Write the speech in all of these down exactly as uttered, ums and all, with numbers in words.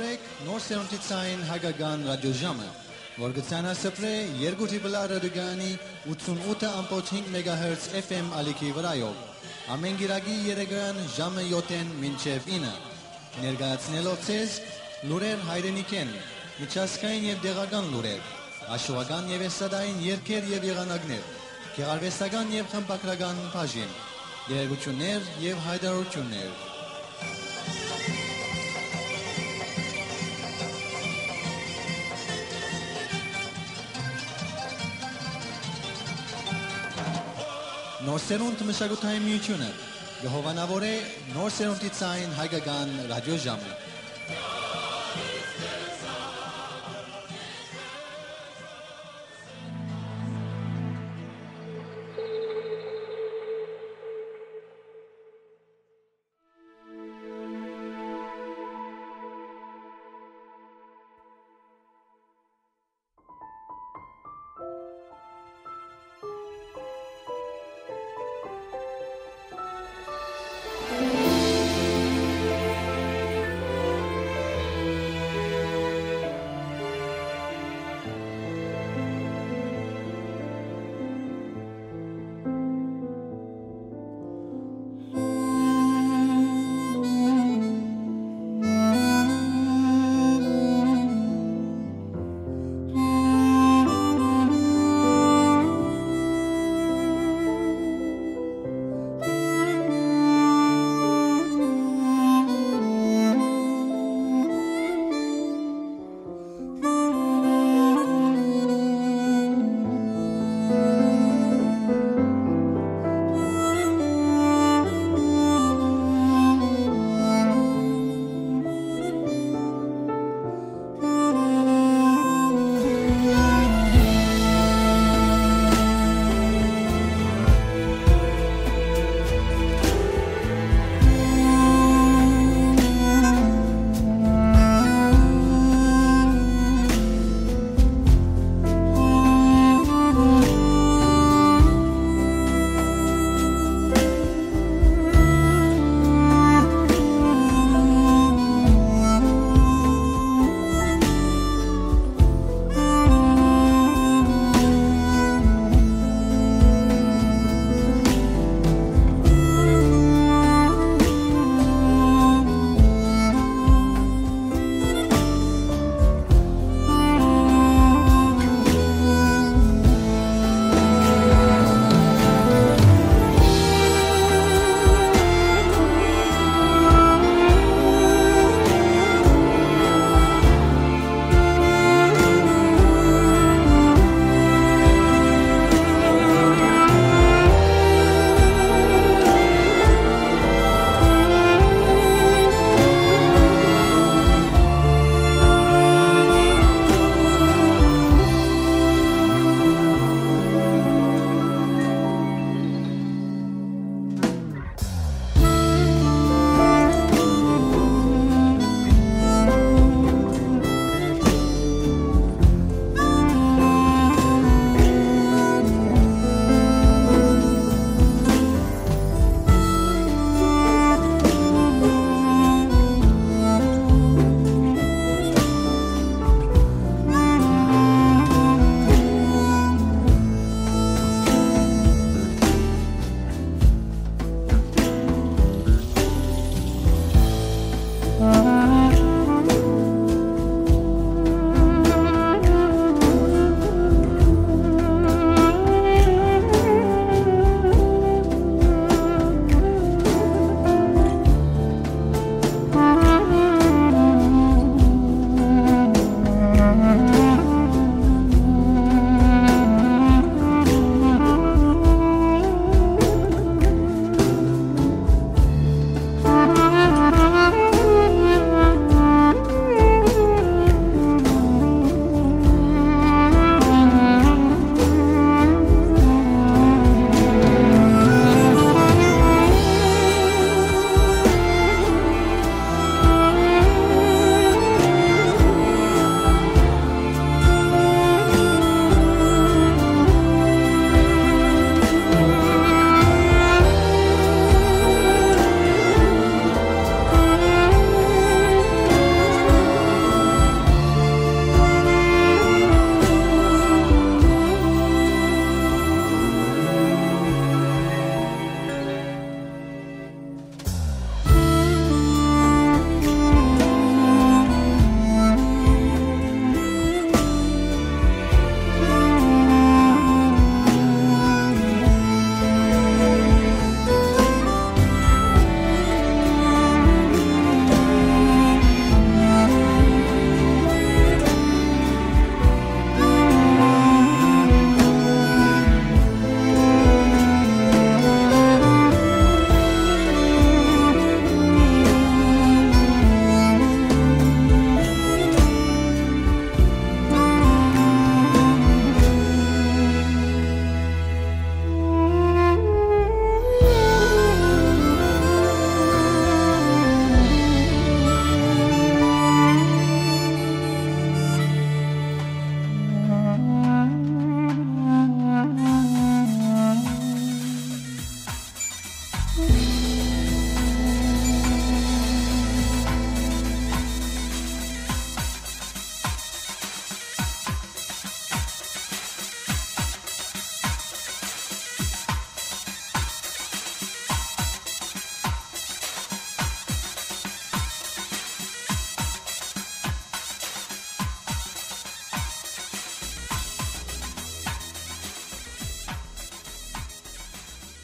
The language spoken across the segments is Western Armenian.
Նոր սերունդի ցային հայկական ռադիոժամը, որ կը ցանասփռէ երկու Triple R ռադիոկայանի ութսունութ ըմբոց հինգ մեգահերց F M ալիքի վրայով, ամէն կիրակի երեկոյեան ժամը յոթ մինչեւ ինը, ներկայացնելով ձեզ լուրեր հայրենիքէն, միջազգային եւ տեղական լուրեր, հաշուական եւ էստրադային երգեր եւ եղանակներ, գեղարուեստական եւ խմբագրական բաժին, տեղեկութիւններ եւ յայտարարութիւններ։ Նոր սերունդ մշակութային միութիւնը կը հովանաւորէ նոր սերունդի ցային հայկական ռադիոժամը։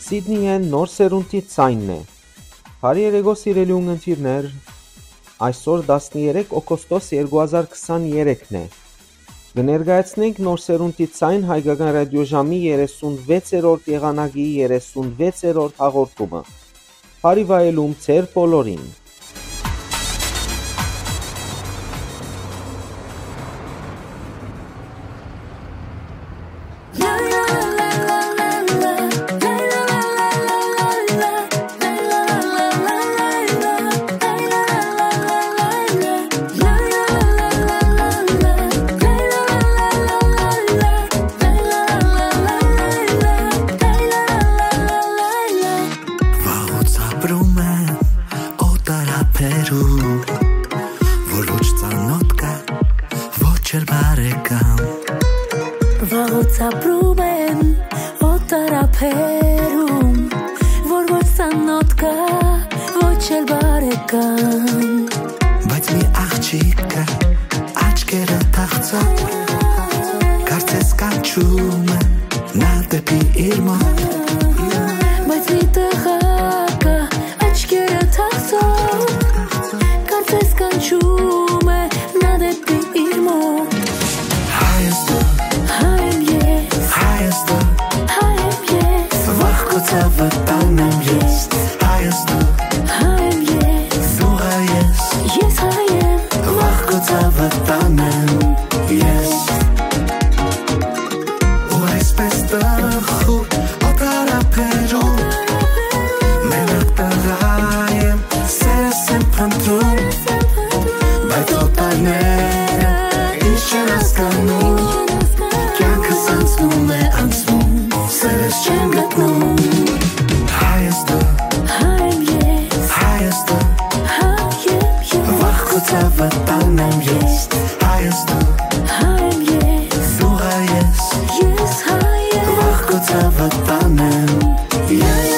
Սիդնիէն նոր սերունդի ձայնն է։ Բարի երեկո, սիրելի ունգընտիրներ, այսօր տասներեք օգոստոս երկու հազար քսաներեքն է։ Կը ներկայացնենք նոր սերունդի ձայն հայկական ռադիոժամի երեսունվեցերորդ եղանակի երեսունվեցերորդ հաղորդումը։ Բարի վայելում ձեր բոլորին։ Վաղուց ապրում եմ օտար ափերում, որ ոչ ծանոթ կա, ոչ էլ բարեկամ։ Վաղուց ապրում եմ օտար ափերում, որ ոչ ծանոթ կա, ոչ էլ բարեկամ։ Բայց մի աղջիկ կա, աչքերը թախծող, կարծես կանչում է նա դեպի իր մոտ։ Բայց մի տղա կա, աչքերը թախծող, կարծես կանչում է նա դեպի իր մոտ։ Հայ ես դու, հայ եմ ես, հայ ես դու, հայ եմ ես, վաղ քո ցավը տանեմ ես։ Հայ ես դու, հայ եմ ես, դու հայ ես, ես հայ եմ, վաղ քո ցավը տանեմ ես։ Ու այսպես տխուր օտար ափերում, մենակ տղայ եմ, սերս եմ փնտռում, բայց օտարները ինչ չեն հասկանում, կյանքս անցնում է, անցնում, սերս չեմ գտնում։ Հայ ես դու, հայ եմ ես, հայ ես դու, հայ եմ ես, վաղ քո ցավը տանեմ ես։ Հայ ես դու, հայ եմ ես, դու հայ ես, ես հայ եմ, վաղ քո ցավը տանեմ ես։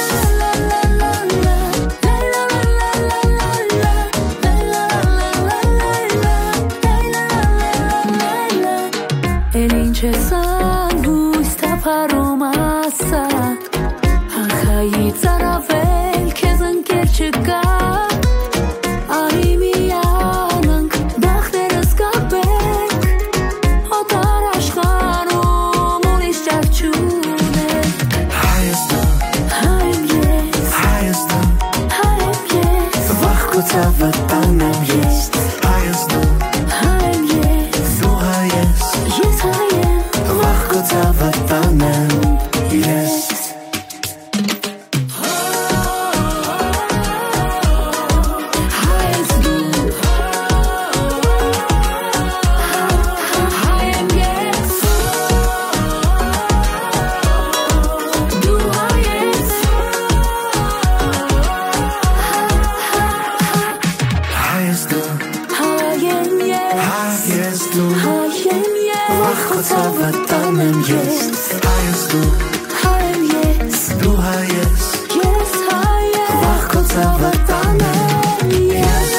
Էլ ինչ ես անհույս թափառում, ասա, ախայի ծարավել քեզ ընկեր չկա։ Արի միանանք, բախներս կապենք, օտար աշխարհում ուրիշ ճար չունենք։ Հայ ես դու, հայ եմ ես, հայ ես դու, հայ եմ ես, վաղ քո ցավը տանեմ ես։ Հայ ես դու, հայ եմ ես, դու հայ ես, ես հայ եմ, վաղ քո ցավը տանեմ ես։ Հայ ես դու, հայ եմ ես, հայ ես դու, հայ եմ ես, վաղ քո ցավը տանեմ ես։ Հայ ես դու, հայ եմ ես, դու հայ ես, ես հայ եմ, վաղ քո ցավը տանեմ ես։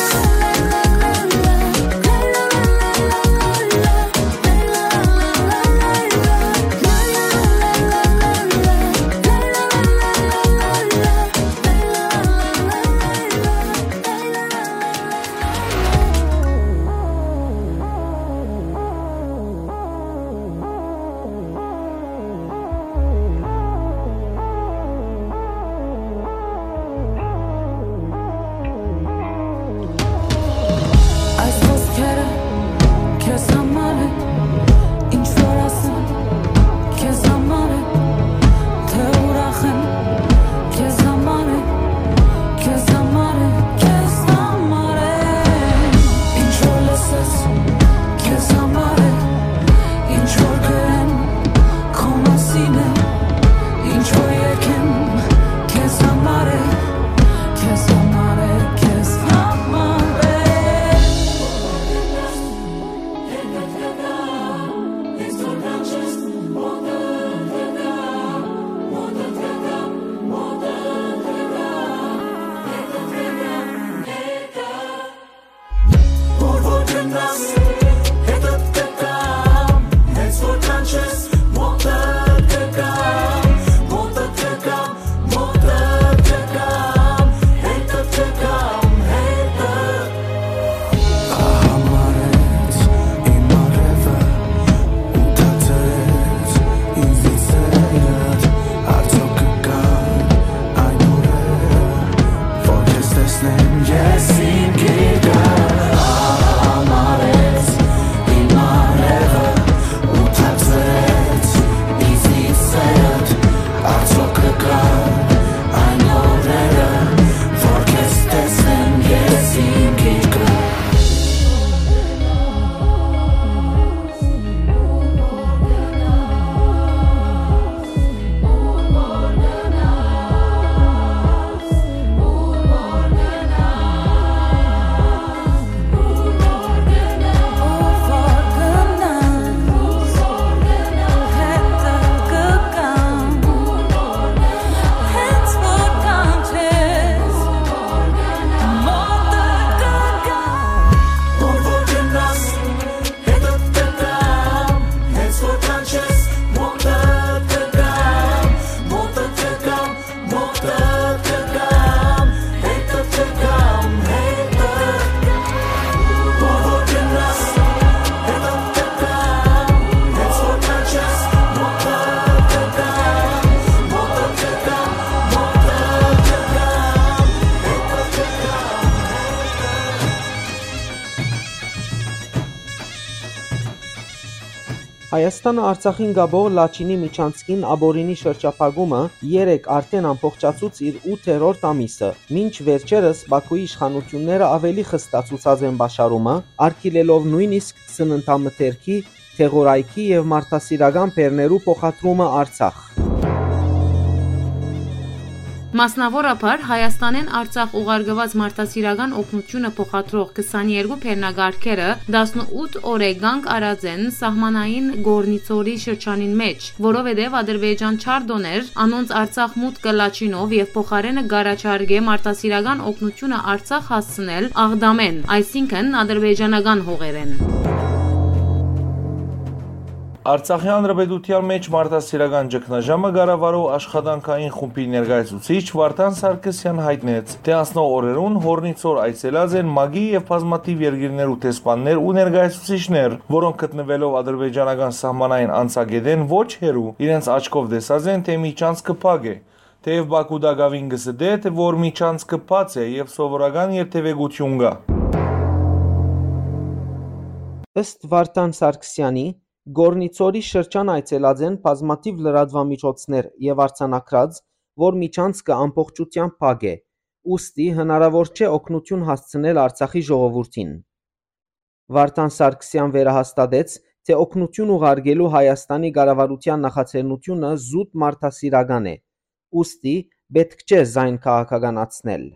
Հայաստանը Արցախին կապող Լաչինի միջանցքին ապօրինի շրջափակումը երեկ արդէն ամբողջացուց իր ութերորդ ամիսը, մինչ վերջերս Բաքուի իշխանութիւնները աւելի խստացուցած են պաշարումը, արգիլելով նոյնիսկ սննդամթերքի, դեղորայքի եւ մարդասիրական բեռներու փոխադրումը Արցախ։ Մասնաւորաբար Հայաստանէն Արցախ ուղարկուած մարդասիրական օգնութիւնը փոխադրող քսաներկու բեռնակառքերը տասնութ օրէ կանգ առած են սահմանային Կորնիցորի շրջանին մէջ, որովհետեւ Ադրբեջան չար տօներ անոնց Արցախ մուտքը Լաչինով եւ փոխարէնը կ'առաջարկէ մարդասիրական օգնութիւնը Արցախ հասցնել Աղդամէն, այսինքն ադրբեջանական հողերէն։ Արցախի Հանրապետութեան մէջ մարդասիրական ճգնաժամը կառավարող աշխատանքային խումբի ներկայացուցիչ Վարդան Սարգսեան յայտնեց, թէ անցնող օրերուն Կորնիցոր այցելած են ՄԱԿ-ի եւ բազմաթիւ երկիրներու դեսպաններ ու ներկայացուցիչներ, որոնք գտնուելով ադրբեջանական սահմանային անցակէտէն ոչ հեռու, իրենց աչքով տեսած են, թէ միջանցքը փակ է։ Թէեւ Բաքու տակաւին կը ստէ, թէ որ միջանցքը բաց է եւ սովորական երթեւեկութիւն կայ։ Ըստ Վարդան Սարգսեանի, Կորնիցորի շրջան այցելած են բազմաթիւ լրատուամիջոցներ եւ արձանագրած, որ միջանցքը ամբողջութեամբ փակ է, ուստի հնարաւոր չէ օգնութիւն հասցնել Արցախի ժողովուրդին։ Վարդան Սարգսեան վերահաստատեց, թէ օգնութիւն ուղարկելու Հայաստանի կառավարութեան նախաձեռնութիւնը զուտ մարդասիրական է, ուստի պէտք չէ զայն քաղաքականացնել։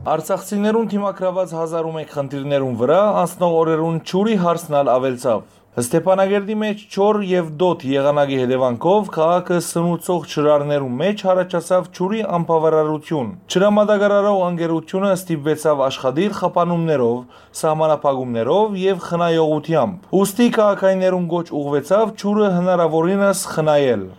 Արցախցիներուն դիմագրաւած հազար ու մէկ խնդիրներուն վրայ անցնող օրերուն ջուրի հարցն ալ աւելցաւ։ Ստեփանակերտի մէջ ջուր եւ դօդ եղանակի հետեւանքով քաղաքը սնուցող ջրարներու մէջ յառաջացաւ ջուրի անբաւարարութիւն։ Ջրամատակարարող ընկերութիւնը ստիպուեցաւ աշխատիլ խափանումներով, սահմանափակումներով եւ խնայողութեամբ։ Ուստի քաղաքայիններուն կոչ ուղղուեցաւ ջուրը հնարաւորինս խնայել։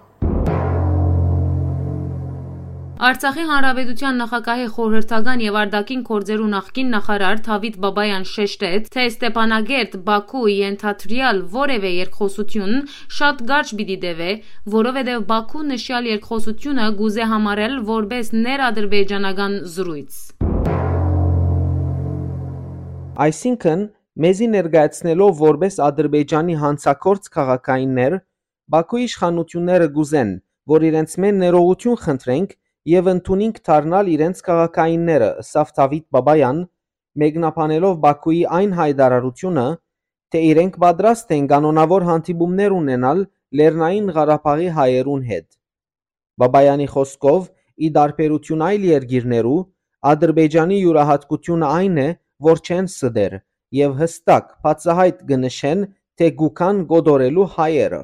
Արցախի Հանրապետութեան նախագահի խորհրդական եւ արտաքին գործերու նախկին նախարար Դավիթ Բաբայան շեշտեց, թէ Ստեփանակերտ, Բաքու ենթադրեալ որեւէ երկխօսութիւն շատ կարճ պիտի տեւէ, որովհետեւ Բաքու նշեալ երկխօսութիւնը կուզէ համարել որպէս ներադրբեջանական զրոյց։ Այսինքն, մեզի ներկայացնելով որպէս Ադրբեջանի յանցագործ քաղաքայիններ, Բաքուի իշխանութիւնները կ'ուզեն, որ իրենցմէ ներողութիւն խնդրենք եւ ընդունինք դառնալ իրենց քաղաքայինները, ըսաւ Դավիթ Բաբայան, մեկնաբանելով Բաքուի այն յայտարարութիւնը, թէ իրենք պատրաստ են կանոնաւոր հանդիպումներ ունենալ Լեռնային Ղարաբաղի հայերուն հետ։ Բաբայանի խօսքով, ի տարբերութիւն այլ երկիրներու, Ադրբեջանի իւրայատկութիւնը այն է, որ չեն ստեր եւ յստակ, բացայայտ կը նշեն, թէ կու գան կոտորելու հայերը։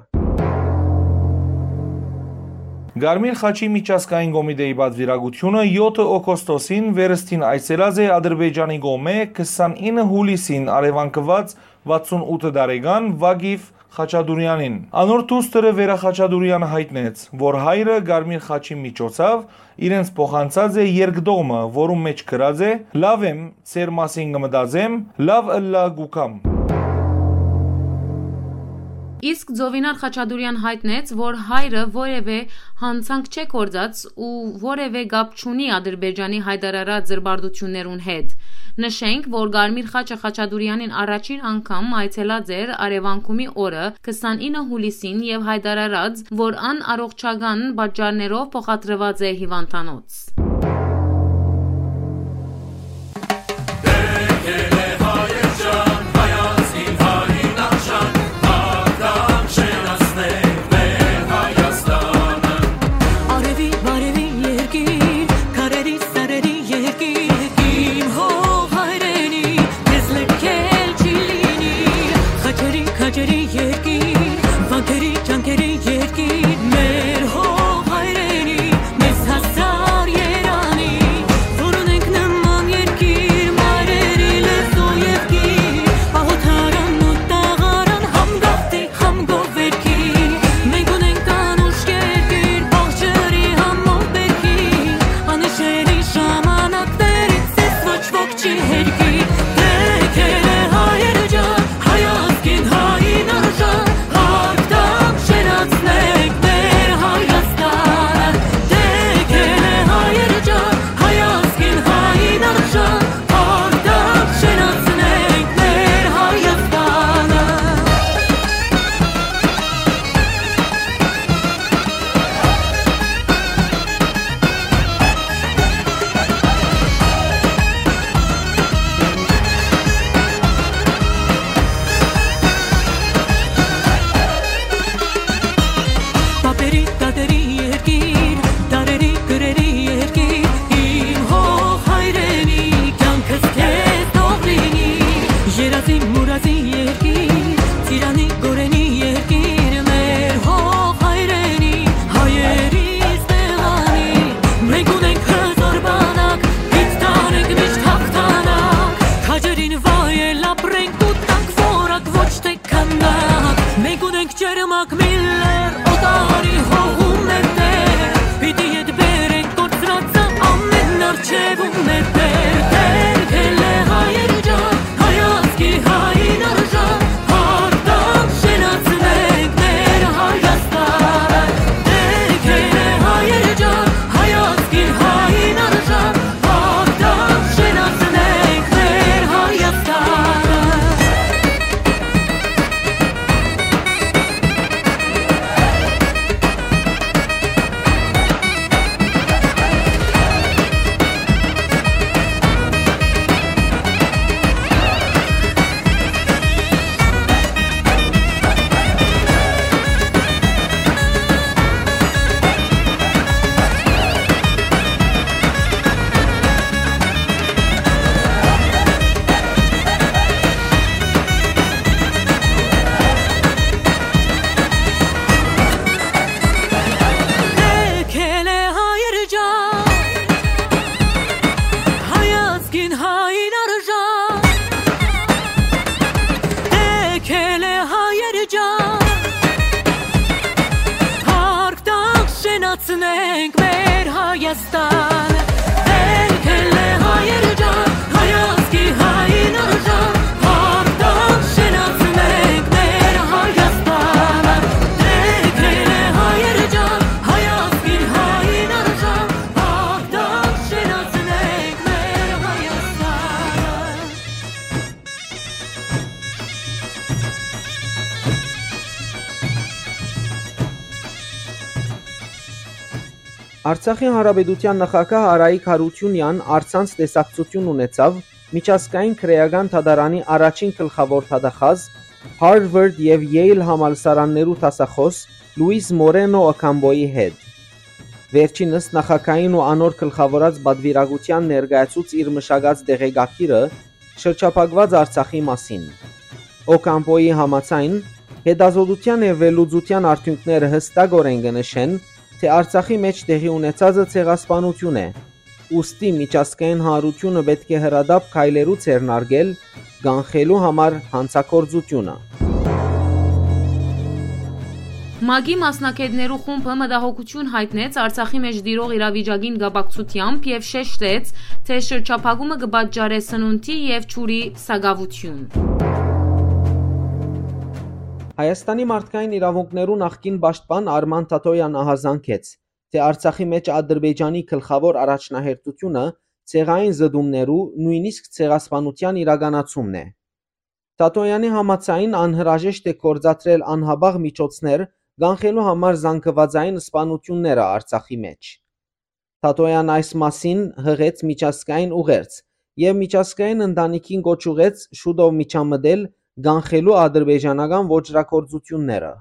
Կարմիր խաչի միջազգային կոմիտեի պատվիրակութիւնը եօթը օգոստոսին վերստին այցելած է Ադրբեջանի կողմէ քսանինը յուլիսին առեւանգուած վաթսուն ութ տարեկան Վագիֆ Խաչատուրեանին։ Անոր դուստրը Վերա Խաչատուրեանը յայտնեց, որ հայրը Կարմիր խաչի միջոցաւ իրենց փոխանցած է երկդողմը, որուն մէջ գրած է. «Լաւ եմ, ձեր մասին կը մտածեմ, լաւ ըլլայ կու գամ»։ Իսկ Ծովինար Խաչատուրեան յայտնեց, որ հայրը որեւէ յանցանք չէ գործած ու որեւէ կապ չունի Ադրբեջանի յայտարարած զրպարտութիւններուն հետ։ Նշենք, որ Կարմիր խաչը Խաչատուրեանին առաջին անգամ այցելած էր Արեւանկումի օրը, քսանինը յուլիսին, եւ յայտարարած, որ ան առողջական պատճառներով փոխադրուած է հիվանդանոց։ Արեւի բարեւի երկիր, քարերի սարերի երկիր, իմ հող հայրենի, քեզ լքել չի լինի։ Խաչերի, քաջերի երկիր, վանքերի, ճանկերի երկիր, մեր հող հայրենի, մեզ հասար երանի, որ ունենք նման երկիր, մայրերի լեզու եւ գիր, պահոթարանն ու տաղարան, համ գաղթի, համ գովերքի։ Մենք ունենք անուշ երկիր, բաղ ջրի, համ մոտ բերքի, անհիշելի ժամանակներից ես ոչ ոք չի հերքի։ Թեքել է հայեր ջան, հայ ազգին, հային արժան, Միլլեր օտարի հողում է տեր, պիտի ետ բերենք կորցրածը ամեն արջևում է տեր, Տեր գելե հայեր ջան, հայ ազգի հային արժան, հաղթանք շենացնենք մեր Հայաստանը, Տեր գելե հայեր ջան, հայ ազգի հային արժան, հաղթանք շենացնենք մեր Հայաստանը։ Եկել է հայեր ջան, հայ ազգին հային արժան, եկել է հայեր ջան, հաղթանք շենացնենք մեր Հայաստանը, եկել է հայեր ջան, հայ ազգի հային արժան, հաղթանք շենացնենք մեր Հայաստանը, եկել է հայեր ջան, հայ ազգի հային արժան, հաղթանք շենացնենք մեր Հայաստանը։ Արցախի Հանրապետութեան նախագահ Արայիկ Յարութիւնեան առցանց տեսակցութիւն ունեցաւ Միջազգային քրէական դատարանի առաջին գլխաւոր դատախազ, Harvard եւ Yale համալսարաններու դասախոս Լուիս Մորենո Օքամպոյի հետ։ Վերջինս նախագահին ու անոր գլխաւորած պատուիրակութեան ներկայացուց իր մշակած տեղեկագիրը շրջափակուած Արցախի մասին։ Օքամպոյի համաձայն, հետազոտութեան եւ վերլուծութեան արդիւնքները յստակօրէն կը նշեն, թէ Արցախի մէջ տեղի ունեցածը ցեղասպանութիւն է, ուստի միջազգային հանրութիւնը պէտք է հրատապ քայլերու ձեռնարկել կանխելու համար հանցագործութիւնը։ ՄԱԿ-ի մասնագետներու խումբը մտահոգութիւն յայտնեց Արցախի մէջ տիրող իրավիճակին կապակցութեամբ եւ շեշտեց, թէ շրջափակումը կը պատճառէ սնունդի եւ ջուրի սակաւութիւն։ Հայաստանի մարդկային իրաւունքներու նախկին պաշտպան Արման Թաթոյեան ահազանգեց, թէ Արցախի մէջ Ադրբեջանի գլխաւոր առաջնահերթութիւնը ցեղային զտումներու, նոյնիսկ ցեղասպանութեան իրականացումն է։ Թաթոյեանի համաձայն, անհրաժեշտ է գործադրել անհապաղ միջոցներ կանխելու համար զանգուածային սպանութիւնները Արցախի մէջ։ Թաթոյեան այս մասին յղեց միջազգային ուղերձ եւ միջազգային ընտանիքին կոչ ուղղեց շուտով միջամտել կանխելու ադրբեջանական ոճրագործութիւնները։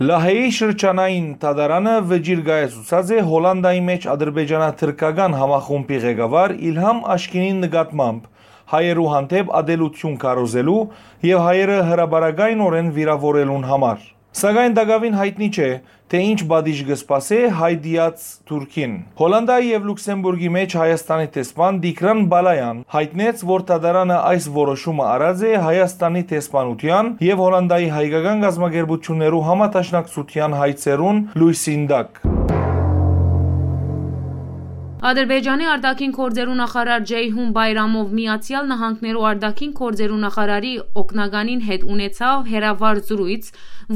Լահեի շրջանային դատարանը վճիռ կայացուցած է Հոլանդայի մէջ ադրբեջանա-թրքական համախումբի ղեկավար Իլհամ Աշկինին նկատմամբ հայերու հանդէպ ատելութիւն քարոզելու եւ հայերը հրապարակայնօրէն վիրաւորելուն համար։ Սակայն տակաւին յայտնի չէ, թէ ինչ պատիժ կը սպասէ հայ դիած Թուրքին։ Հոլանդայի եւ Լուքսեմբուրգի մէջ Հայաստանի դեսպան Տիգրան Բալայան յայտնեց, որ դատարանը այս որոշումը առած է Հայաստանի դեսպանութեան եւ Հոլանդայի հայկական կազմակերպութիւններու համադաշնակցութեան հայցերուն լոյսին տակ։ Ադրբեջանի արտաքին գործերու նախարար Ջեյհուն Բայրամով Միացեալ Նահանգներու արտաքին գործերու նախարարի օգնականին հետ ունեցաւ հեռավար զրոյց,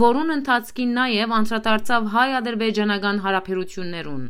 որուն ընթացքին նաեւ անդրադարձաւ հայ-ադրբեջանական հարաբերութիւններուն։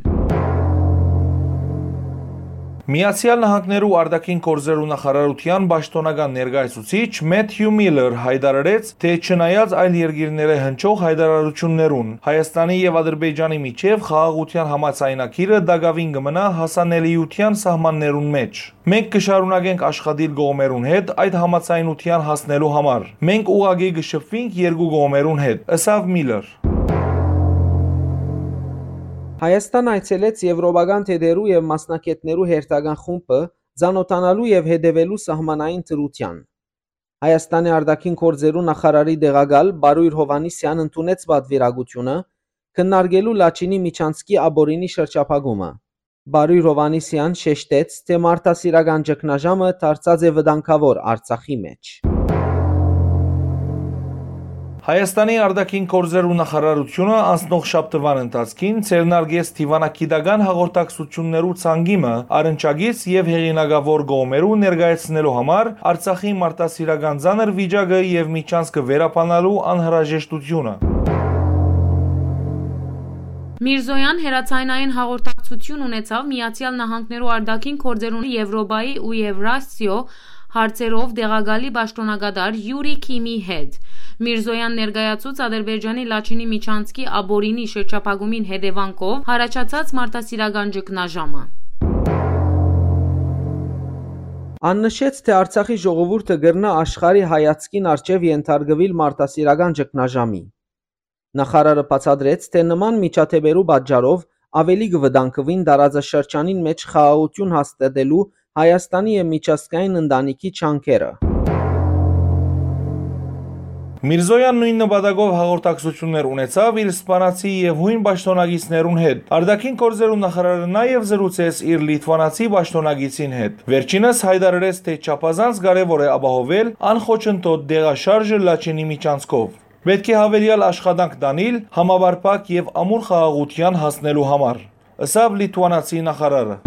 Միացեալ Նահանգներու արտաքին գործերու նախարարութեան պաշտօնական ներկայացուցիչ Մեթյու Միլլեր յայտարարեց, թէ չնայած այլ երկիրներէ հնչող յայտարարութիւններուն, Հայաստանի եւ Ադրբեջանի միջեւ խաղաղութեան համաձայնագիրը տակաւին կը մնայ հասանելիութեան սահմաններուն մէջ։ Մենք կը շարունակենք աշխատիլ կողմերուն հետ այդ համաձայնութեան հասնելու համար։ Մենք ուղղակի կը շփուինք երկու կողմերուն հետ, ըսաւ Միլլեր։ Հայաստան այցելեց Եվրոպական թեթերու եւ մասնագետներու հերթական խումբը՝ ծանօթանալու եւ հետեւելու սահմանային դրութեան։ Հայաստանի արտաքին գործերու նախարարի տեղակալ Բարոյր Հովհաննիսեան ընդունեց պատվիրակութիւնը՝ քննարկելու Լաչինի միջանցքի ապօրինի շրջափակումը։ Բարոյր Հովհաննիսեան շեշտեց, թէ մարդասիրական ճգնաժամը դարձած է վտանգաւոր Արցախի մէջ։ Հայաստանի արտաքին գործերու նախարարութիւնը անցնող շաբթուան ընթացքին ձեռնարկեց դիւանագիտական հաղորդակցութիւններու ցանկի մը առնչակից եւ հեղինակաւոր կողմերու ներկայացնելու համար Արցախի մարդասիրական ծանր վիճակը եւ միջանցքը վերաբանալու անհրաժեշտութիւնը։ Միրզոյան հեռաձայնային հաղորդակցութիւն ունեցաւ Միացեալ Նահանգներու արտաքին գործերուն Եւրոպայի ու Եվրասիոյ հարցերով տեղակալի պաշտօնակատար Յուրի Քիմի հետ։ Միրզոյան ներկայացուց Ադրբեջանի Լաչինի միջանցքի Աբորինի շրջափակումին հետեւանքով յառաջացած մարդասիրական ճգնաժամը։ Ան նշեց, թէ Արցախի ժողովուրդը կրնայ աշխարհի հայացքին առջեւ ենթարկուիլ մարդասիրական ճգնաժամի։ Նախարարը բացատրեց, թէ նման միջադէպերու պատճառով աւելի կը վտանգուին տարածաշրջանին մէջ խաղաղութիւն հաստատելու Հայաստանի եւ միջազգային ընտանիքի ջանքերը։ Միրզոյան նոյն նպատակով հաղորդակցութիւններ ունեցաւ իր սպանացի եւ յոյն պաշտօնակիցներուն հետ։ Արտաքին գործերու նախարարը նաեւ զրուցեց իր լիթուանացի պաշտօնակիցին հետ։ Վերջինս յայտարարեց, թէ չափազանց կարեւոր է ապահովել անխոչընդոտ տեղաշարժը Լաչինի միջանցքով։ Պէտք է հավելեալ աշխատանք տանիլ համապարփակ եւ ամուր խաղաղութեան հասնելու համար, ըսաւ լիթուանացի նախարարը։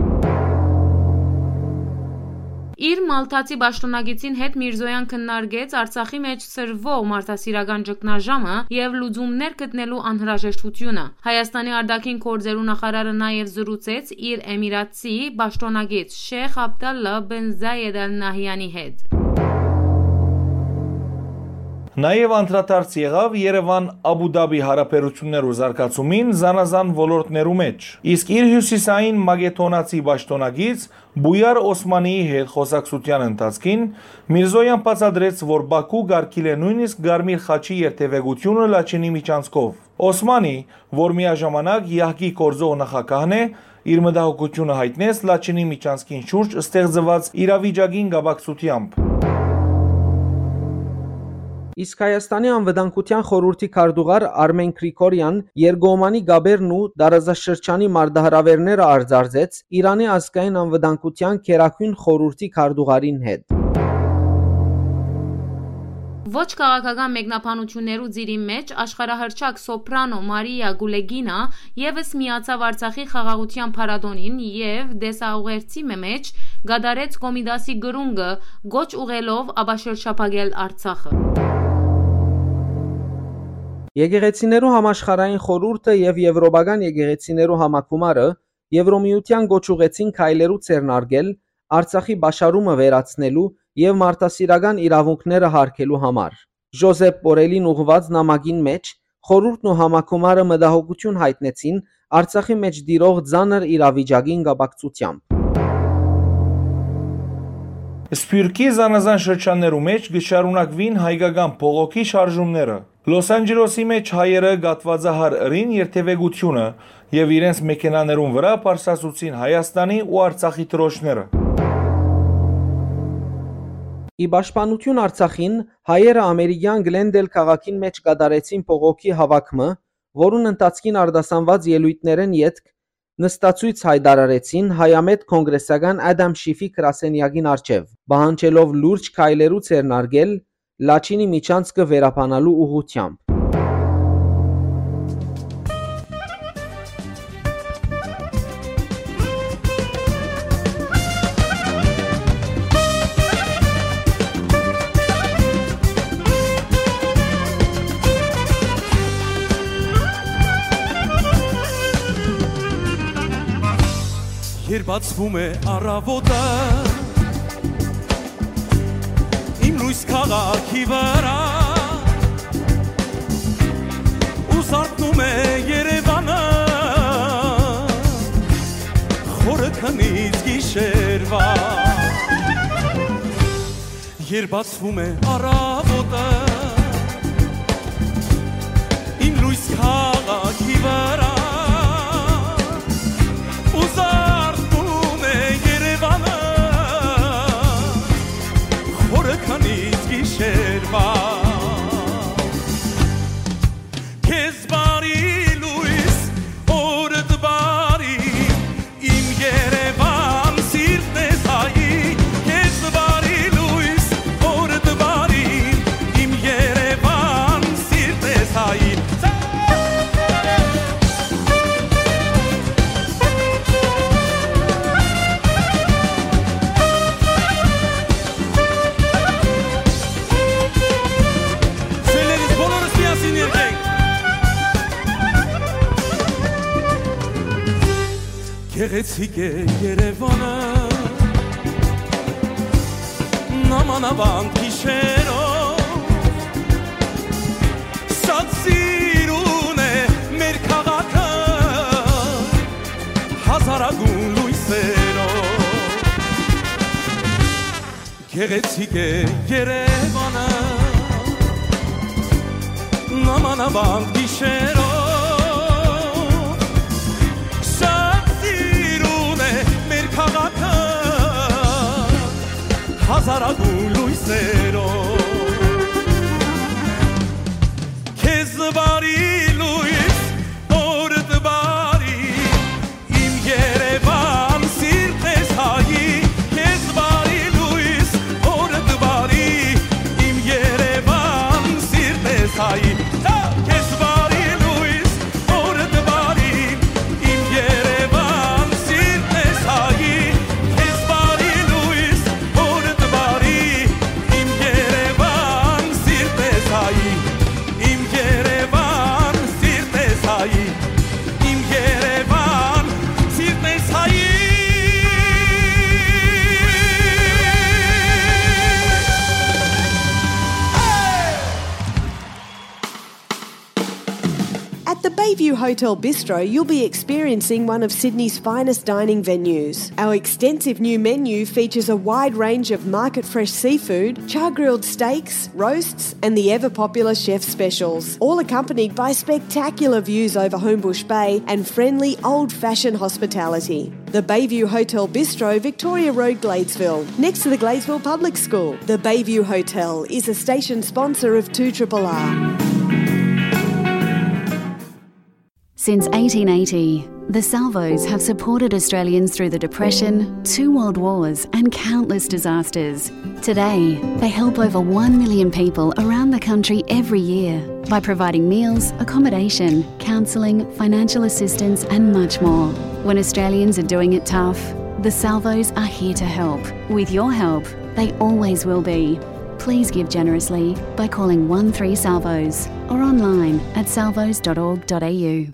Իր մալթացի պաշտօնակիցին հետ Միրզոյան քննարկեց Արցախի մէջ սրվող մարդասիրական ճգնաժամը եւ լուծումներ գտնելու անհրաժեշտութիւնը։ Հայաստանի արտաքին գործերու նախարարը նաեւ զրուցեց իր էմիրատցի պաշտօնակից Շեյխ Աբդալլա բեն Զայեդ Ալ Նահյանի հետ։ Նաեւ անդրադարձ եղաւ Երեւան-Աբու Դաբի յարաբերութիւններու զարգացումին զանազան ոլորտներու մէջ, իսկ իր հիւսիսային մակեդոնացի պաշտօնակից Բույար Օսմանիի հետ խօսակցութեան ընթացքին Միրզոյան բացատրեց, որ Բաքու կարգիլ է նոյնիսկ Կարմիր խաչի երթեւեկութիւնը Լաչինի միջանցքով։ Օսմանի, որ միաժամանակ յահկի գործող նախագահն է, իր մտահոգութիւնը յայտնեց Լաչինի միջանցքին շուրջ ստեղծուած իրավիճակին կապակցութեամբ։ Իսկ Հայաստանի անվտանգութեան խորհուրդի քարտուղար Արմեն Գրիգորյան երկկողմանի կապերն ու տարածաշրջանի մարտահրաւէրները արծարծեց Իրանի ազգային անվտանգութեան գերագույն խորհուրդի քարտուղարին հետ։ Ոչ քաղաքական մեկնաբանութիւններու ծիրի մէջ աշխարհահռչակ սոփրանո Մարիա Գուլեգինա եւս միացաւ Արցախի խաղաղութեան փառատոնին եւ տեսաուղերձի մը մէջ կատարեց Կոմիտասի կրունկը՝ կոչ ուղղելով ապաշրջափակել Արցախը։ Եկեղեցիներու համաշխարհային խորհուրդը եւ Եւրոպական եկեղեցիներու համագումարը Եվրոմիութեան կոչ ուղղեցին քայլերու ձեռնարկել Արցախի պաշարումը վերացնելու եւ մարդասիրական իրաւունքները յարգելու համար։ Ժոզեփ Պորելին ուղղուած նամակին մէջ խորհուրդն ու համագումարը մտահոգութիւն յայտնեցին Արցախի մէջ տիրող ծանր իրավիճակին կապակցութեամբ։ Սփիւռքի զանազան շրջաններու մէջ կը շարունակուին հայկական բողոքի շարժումները։ Լոս Անջելոսի մէջ հայերը կաթուածահար ըրին երթեւեկութիւնը եւ իրենց մեքենաներուն վրայ բարձրացուցին Հայաստանի ու Արցախի դրոշները։ Ի պաշտպանութիւն Արցախին, հայերը ամերիկեան Գլենդել քաղաքին մէջ կատարեցին բողոքի հաւաք մը, որուն ընթացքին արտասանուած ելոյթներէն ետք նստացոյց յայտարարեցին հայամետ կոնգրեսական Ադամ Շիֆի գրասենեակին առջեւ, պահանջելով լուրջ քայլերու ձեռնարկել Լաչինի միջանցքը վերաբանալու ուղղութեամբ։ Երբ բացվում է առավոտը, իմ լույս քաղաքի վրա, ու զարթնում է Երևանը, խորը քնից գիշերվա։ Երբ բացվում է առավոտը, իմ լույս քաղաքի վրա, ու զարթնում է Երևանը, խորը քնից գիշերվա։ Քեզ բարի լույս, օրդ բարի, իմ Երևան, սիրտն ես հայի, քեզ բարի լույս, օրդ բարի, իմ Երևան, սիրտ Գեղեցիկ է Երևանը, նմանավանդ գիշերով, շատ սիրուն է մեր քաղաքը, հազարագուն լույսերով։ Գեղեցիկ է Երևանը, նմանավանդ գիշերով, շատ սիրուն է մեր քաղաքը, հազարագուն լույսերով։ Քեզ բարի լույս, օրդ բարի, իմ Երևան, սիրտս հայի, քեզ բարի լույս, օրդ բարի, իմ Երևան, սիրտս հայի, քեզ բարի լույս, օրդ բարի, իմ Երևան, սիրտս հայի, քեզ բարի լույս, օրդ բարի, իմ Երևան, սիրտս հայի, իմ Երևան, սիրտս հայի, իմ Երևան, սիրտս հայի։ At the Bayview Hotel Bistro, you'll be experiencing one of Sydney's finest dining venues. Our extensive new menu features a wide range of market fresh seafood, char grilled steaks, roasts, and the ever popular chef specials, all accompanied by spectacular views over Homebush Bay and friendly old fashioned hospitality. The Bayview Hotel Bistro, Victoria Road, Gladesville, next to the Gladesville Public School. The Bayview Hotel is a station sponsor of two triple R. Since eighteen eighty, the Salvos have supported Australians through the Depression, two world wars, and countless disasters. Today, they help over one million people around the country every year by providing meals, accommodation, counselling, financial assistance, and much more. When Australians are doing it tough, the Salvos are here to help. With your help, they always will be. Please give generously by calling one three Salvos or online at salvos dot org dot a u.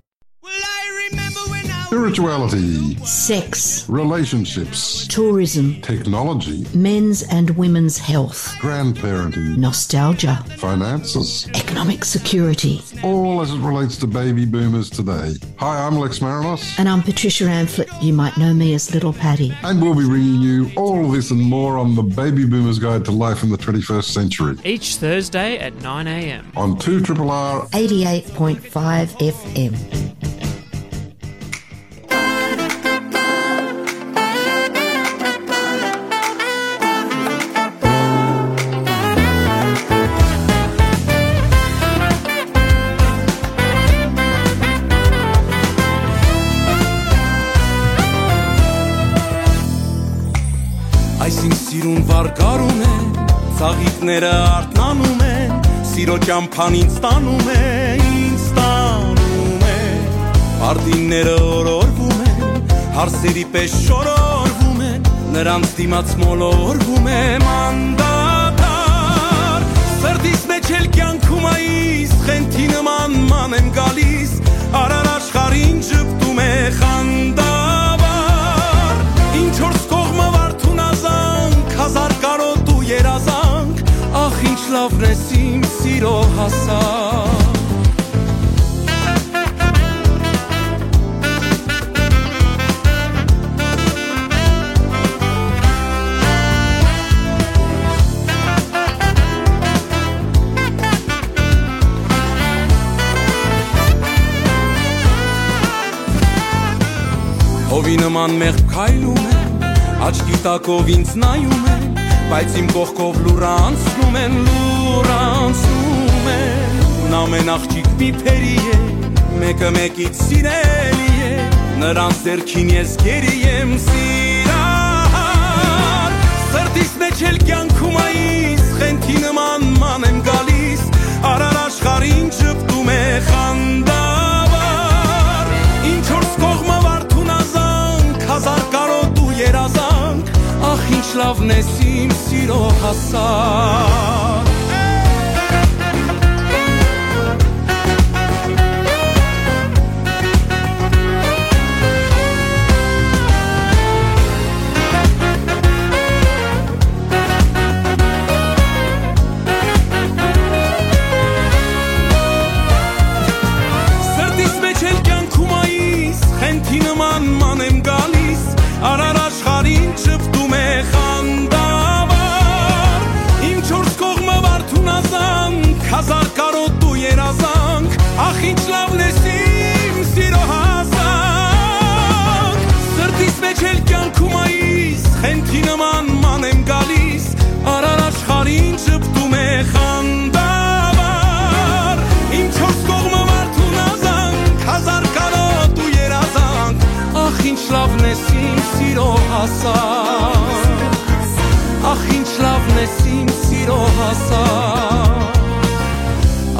Spirituality, sex, relationships, tourism, technology, men's and women's health, grandparenting, nostalgia, finances, economic security, all as it relates to baby boomers today. Hi, I'm Lex Marinos. And I'm Patricia Amphlett. You might know me as Little Patty. And we'll be bringing you all this and more on the Baby Boomers Guide to Life in the twenty-first Century. Each Thursday at nine a m. On two triple R eighty-eight point five F M. Այսինքն սիրուն վարկարում է, ծաղիկները արթնանում են, սիրո ճամփան ինձ տանում է, ինձ տանում է։ Արտինները օրորվում են, հարսերի պես շորորվում են, նրանց դիմաց մոլորվում եմ անդադար։ Սրտիս մեջ էլ կյանքում այս խենթի նման ման եմ գալիս, արար աշխարհին ժպտում է խանդավառ։ Ինչ որ կողմը վարդուն ազանք, հազար կարոտու երազանք, ախ, ինչ լավն ես իմ սիրո հասակ։ Հովի նման մեղմ քայլում եմ, աչքի տակով ինձ նայում են, բայց իմ կողքով լուռ անցնում են, լուռ անցնում են։ Ամեն աղջիկ մի փերի է, մեկը մեկից սիրելի է, նրանց ձեռքին ես գերի եմ սիրահար։ Սրտիս մեջ էլ կյանքում այս խենթի նման ման եմ գալիս, արար աշխարհին ժպտում է խանդավառ։ Ինչ որ կողմը վարդուն ազանք, հազար կարոտու երազանք, ախ, ինչ լավն ես իմ սիրո հասակ։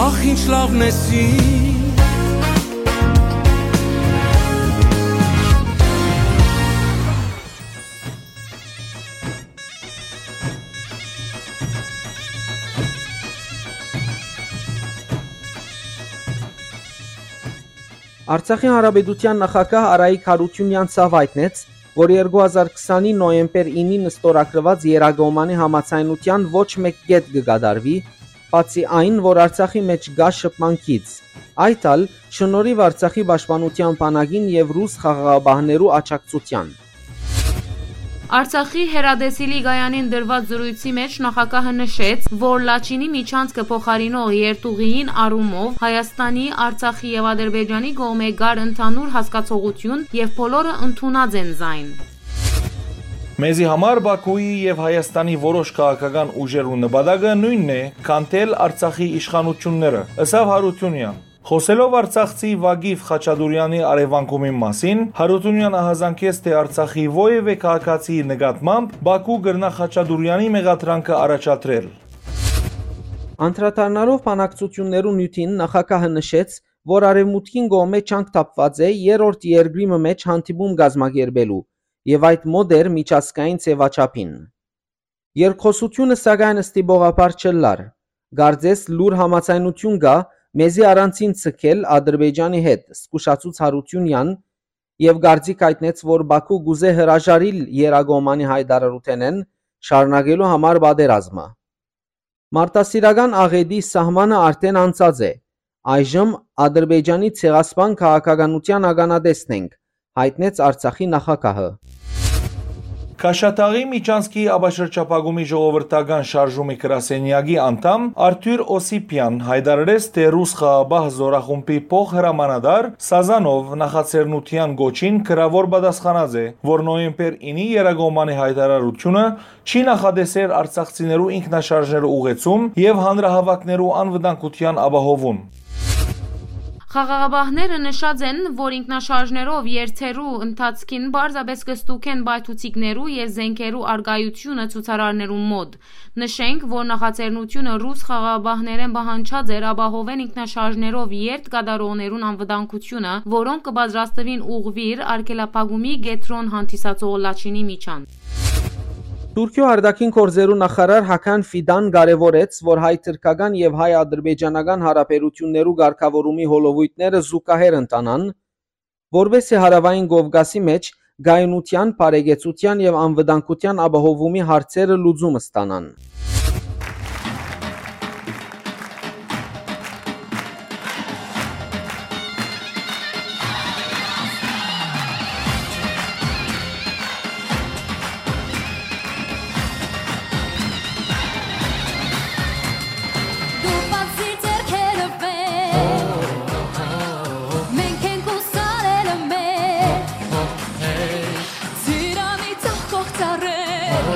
Ախ, ինչ լաւ նեսի։ Արցախի Հանրապետութեան նախագահ Արայիկ Յարութիւնեան ցաւ յայտնեց, որ երկու հազար քսանի նոյեմբեր ինին ստորագրուած Երակոմանի համաձայնութեան ոչ մէկ կետ կը կատարուի, բացի այն, որ Արցախի մէջ կայ շփման գիծ։ Այդ ալ շնորհիւ Արցախի պաշտպանութեան բանակին եւ ռուս խաղաղապահներու աջակցութեան։ Արցախի հեռատեսիլի կայանին տրուած զրոյցի մէջ նախագահը նշեց, որ Լաչինի միջանցքը փոխարինող երթուղիին առումով Հայաստանի, Արցախի եւ Ադրբեջանի կողմէ կար ընդհանուր հասկացողութիւն եւ բոլորը ընդունած են զայն։ Մեզի համար Բաքուի եւ Հայաստանի որոշ քաղաքական ուժերու նպատակը նոյնն է՝ քանդել Արցախի իշխանութիւնները, ըսաւ Յարութիւնեան։ Խօսելով արցախցի Վագիֆ Խաչատուրեանի առեւանգումին մասին, Յարութիւնեան ահազանգեց, թէ Արցախի որեւէ քաղաքացիի նկատմամբ Բաքու կրնայ Խաչատուրեանի մեղադրանքը առաջադրել։ Անդրադառնալով բանակցութիւններու նիւթին, նախագահը նշեց, որ Արեւմուտքին կողմէ ջանք թափուած է երրորդ երկրի մը մէջ հանդիպում կազմակերպելու եւ այդ մոտ էր միջազգային ձեւաչափին։ Երկխօսութիւնը, սակայն, ստիպողաբար չըլլար։ Կարծես լուր համաձայնութիւն կայ մեզի առանձին ձգել Ադրբեջանի հետ, զգուշացուց Յարութիւնեան եւ կարծիք յայտնեց, որ Բաքու կուզէ հրաժարիլ Երակոմանի յայտարարութենէն, շարունակելու համար պատերազմը։ Մարդասիրական աղէտի սահմանը արդէն անցած է։ Այժմ Ադրբեջանի ցեղասպան քաղաքականութեան ականատեսն ենք, յայտնեց Արցախի նախագահը։ Քաշաթաղի միջանցքի ապաշրջափակումի ժողովրդական շարժումի գրասենյակի անդամ Արթուր Օսիպեան յայտարարեց, թէ ռուս խաղաղապահ զօրախումբի փոխհրամանատար Սազանով նախաձեռնութեան կոչին գրաւոր պատասխանած է, որ նոյեմբեր ինի Երակոմանի յայտարարութիւնը չի նախատեսեր արցախցիներու ինքնաշարժներու ուղեկցում եւ հանրահաւաքներու անվտանգութեան ապահովում։ Խաղաղապահները նշած են, որ ինքնաշարժներով երթերու ընթացքին պարզապէս կը ստուգեն պայթուցիկներու եւ զէնքերու առկայութիւնը ցուցարարներուն մօտ։ Նշենք, որ նախաձեռնութիւնը ռուս խաղաղապահներէն պահանջած էր ապահովեն ինքնաշարժներով երթ կատարողներուն անվտանգութիւնը, որոնք կը պատրաստուին ուղղուիր արգելափակումի կեդրոն հանդիսացող Լաչինի միջան։ Թուրքիոյ արտաքին գործերու նախարար Հական Ֆիդան կարեւորեց, որ հայ-թրքական եւ հայ-ադրբեջանական յարաբերութիւններու կարգաւորումի հոլովոյթները զուգահեռ ընթանան, որպէսզի Հարաւային Կովկասի մէջ կայունութեան, բարեկեցութեան եւ անվտանգութեան ապահովումի հարցերը լուծում ստանան։ Դու բացի ձեռքերը վեր, մենք ենք ու սարերը մեր, ծիրանի ծաղկող ծառեր,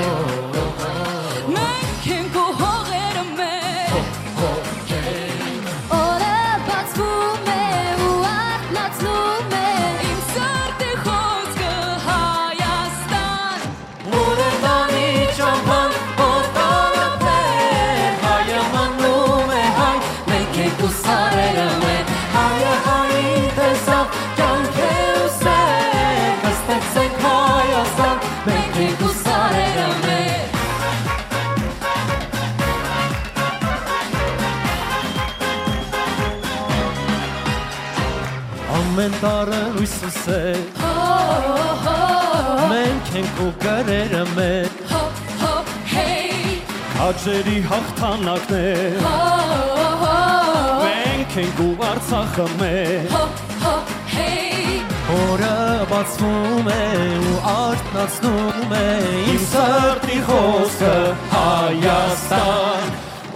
մենք ենք ու հողերը մեր։ Օրը բացվում է ու արթնացնում է իմ սրտի խոզքը Հայաստան։ Ուրեմն չափան օտարապետ, հայը մնում է հայ, մենք ենք ու սարերը մեր, հայը հային տեսավ, կյանք է ու սեր, կստեղծենք Հայաստան, մենք ենք ու սարերը մեր։ Ամեն տարը լույս ու սեր, մենք ենք ու կրերը մեր, քաջերի հաղթանակներ, մենք ենք ու Արցախը մեր, օրը բացվում է ու արթնացնում է իմ սրտի խոզքը Հայաստան։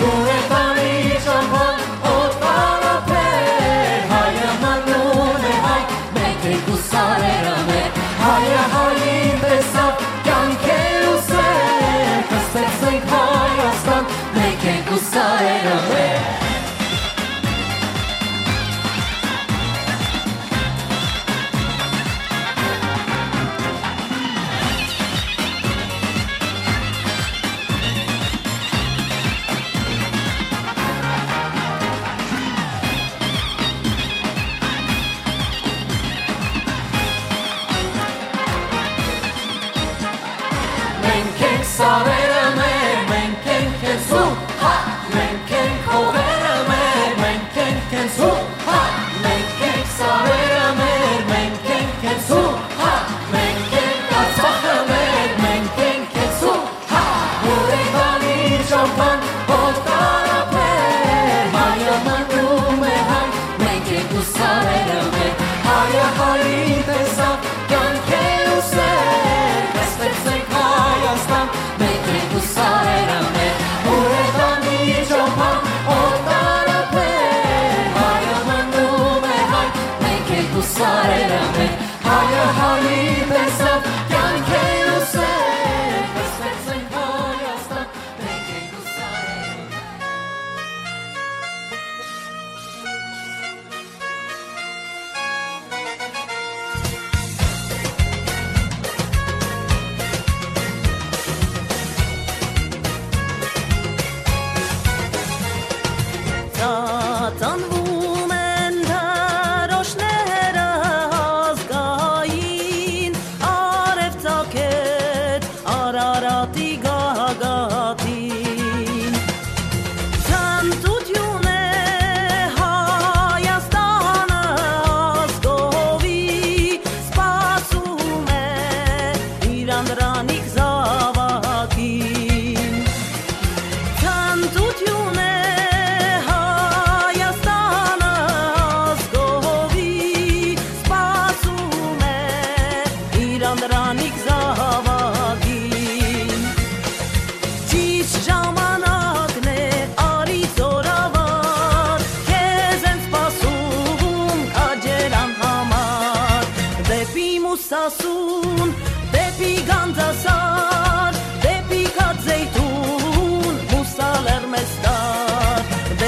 Ուրեմն չափան օտարապետ, հայը մնում է հայ, մենք ենք ու սարերը մեր, հայը հային տեսավ, կյանք է ու սեր, կստեղծենք Հայաստան, մենք ենք ու սարերը մեր։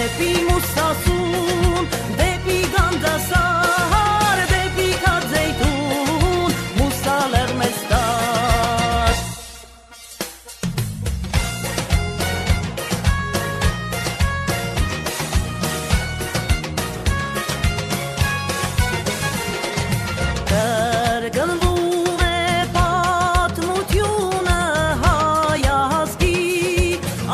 Դէպի Մուսասուն, դէպի Գանձասար, դէպի Քաձեյթուն, Մուսա Լեռնեստար։ Կրկնվում է պատմութիւնը հայ ազգի,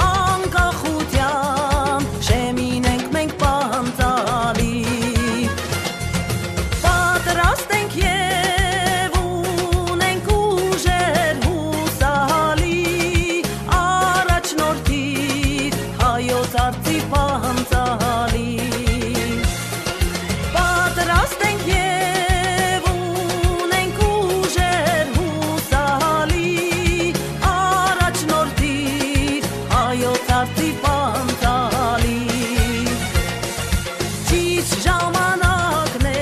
անկախութեան շեմին ենք մենք պանծալի։ Պատրաստ ենք եւ ունենք ուժեր յուսալի, առաջնորդիր հայոց արծի պանծալի։ Պատրաստ ենք եւ ունենք ուժեր յուսալի, առաջնորդիր հայոց արծի պանծալի։ Ճիշտ ժամանակն է,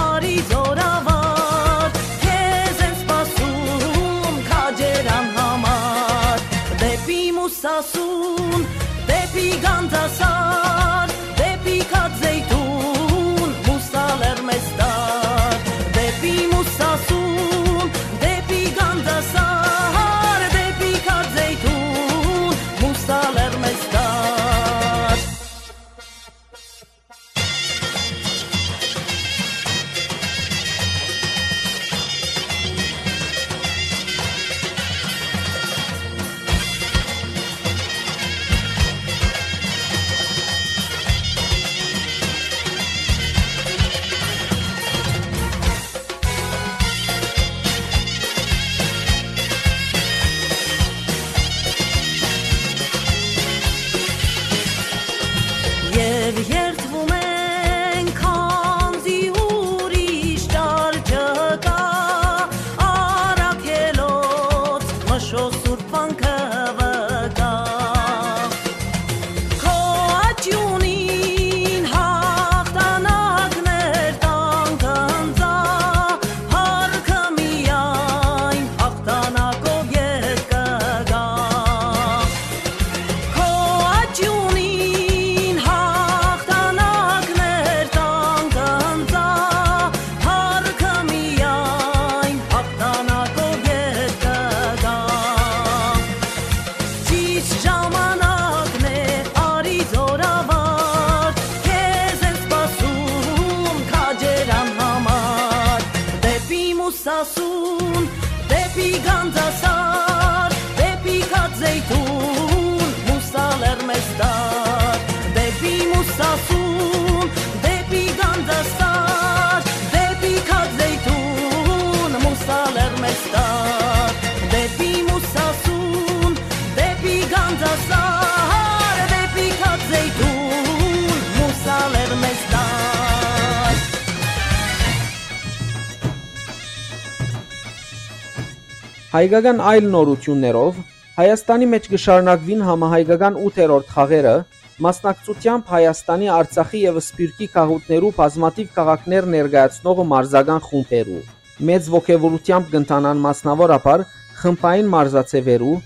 արի զօրավար, քեզ են սպասում քաջերան համար։ Դէպի Մուսասուն, դէպի Գանձասար, դէպի Քաձեյթուն, Մուսա Լեռնեստար։ Դէպի Մուսասուն, դէպի Գանձասար, դէպի Քաձեյթուն, Մուսա Լեռնեստար։ Եւ երդվում ենք, քանզի ուրիշ ճար չկայ, առաքելոց մշոյ սուրբ վանքը վկայ։ Քո աճիւնին հաղթանակներ տանք ընծայ, հարկը միայն հաղթանակով ետ կգայ։ Քո աճիւնին հաղթանակներ տանք ընծայ, հարկը միայն հաղթանակով ետ կգայ։ Ճիշտ ժամանակն է, արի զօրավար, քեզ են սպասում քաջերան համար։ Դէպի Մուսասուն, դէպի Գանձասար, դէպի Քաձեյթուն, Մուսա Լեռնեստար։ Դէպի Մուսասուն, դէպի Գանձասար, դէպի Քաձեյթուն, Մուսա Լեռնեստար։ Դէպի Մուսասուն, դէպի Գանձասար, դէպի Քաձեյթուն, Մուսա Լեռնեստար։ Հայկական այլ նորութիւններով, Հայաստանի մէջ կը շարունակուին համահայկական ութերորդ խաղերը, մասնակցութեամբ Հայաստանի, Արցախի եւ Սփիւռքի գաղութներու բազմաթիւ քաղաքներ ներկայացնող մարզական խումբերու։ Մեծ ոգեւորութեամբ կ'ընթանան մասնաւորաբար խմբային մարզաձեւերու,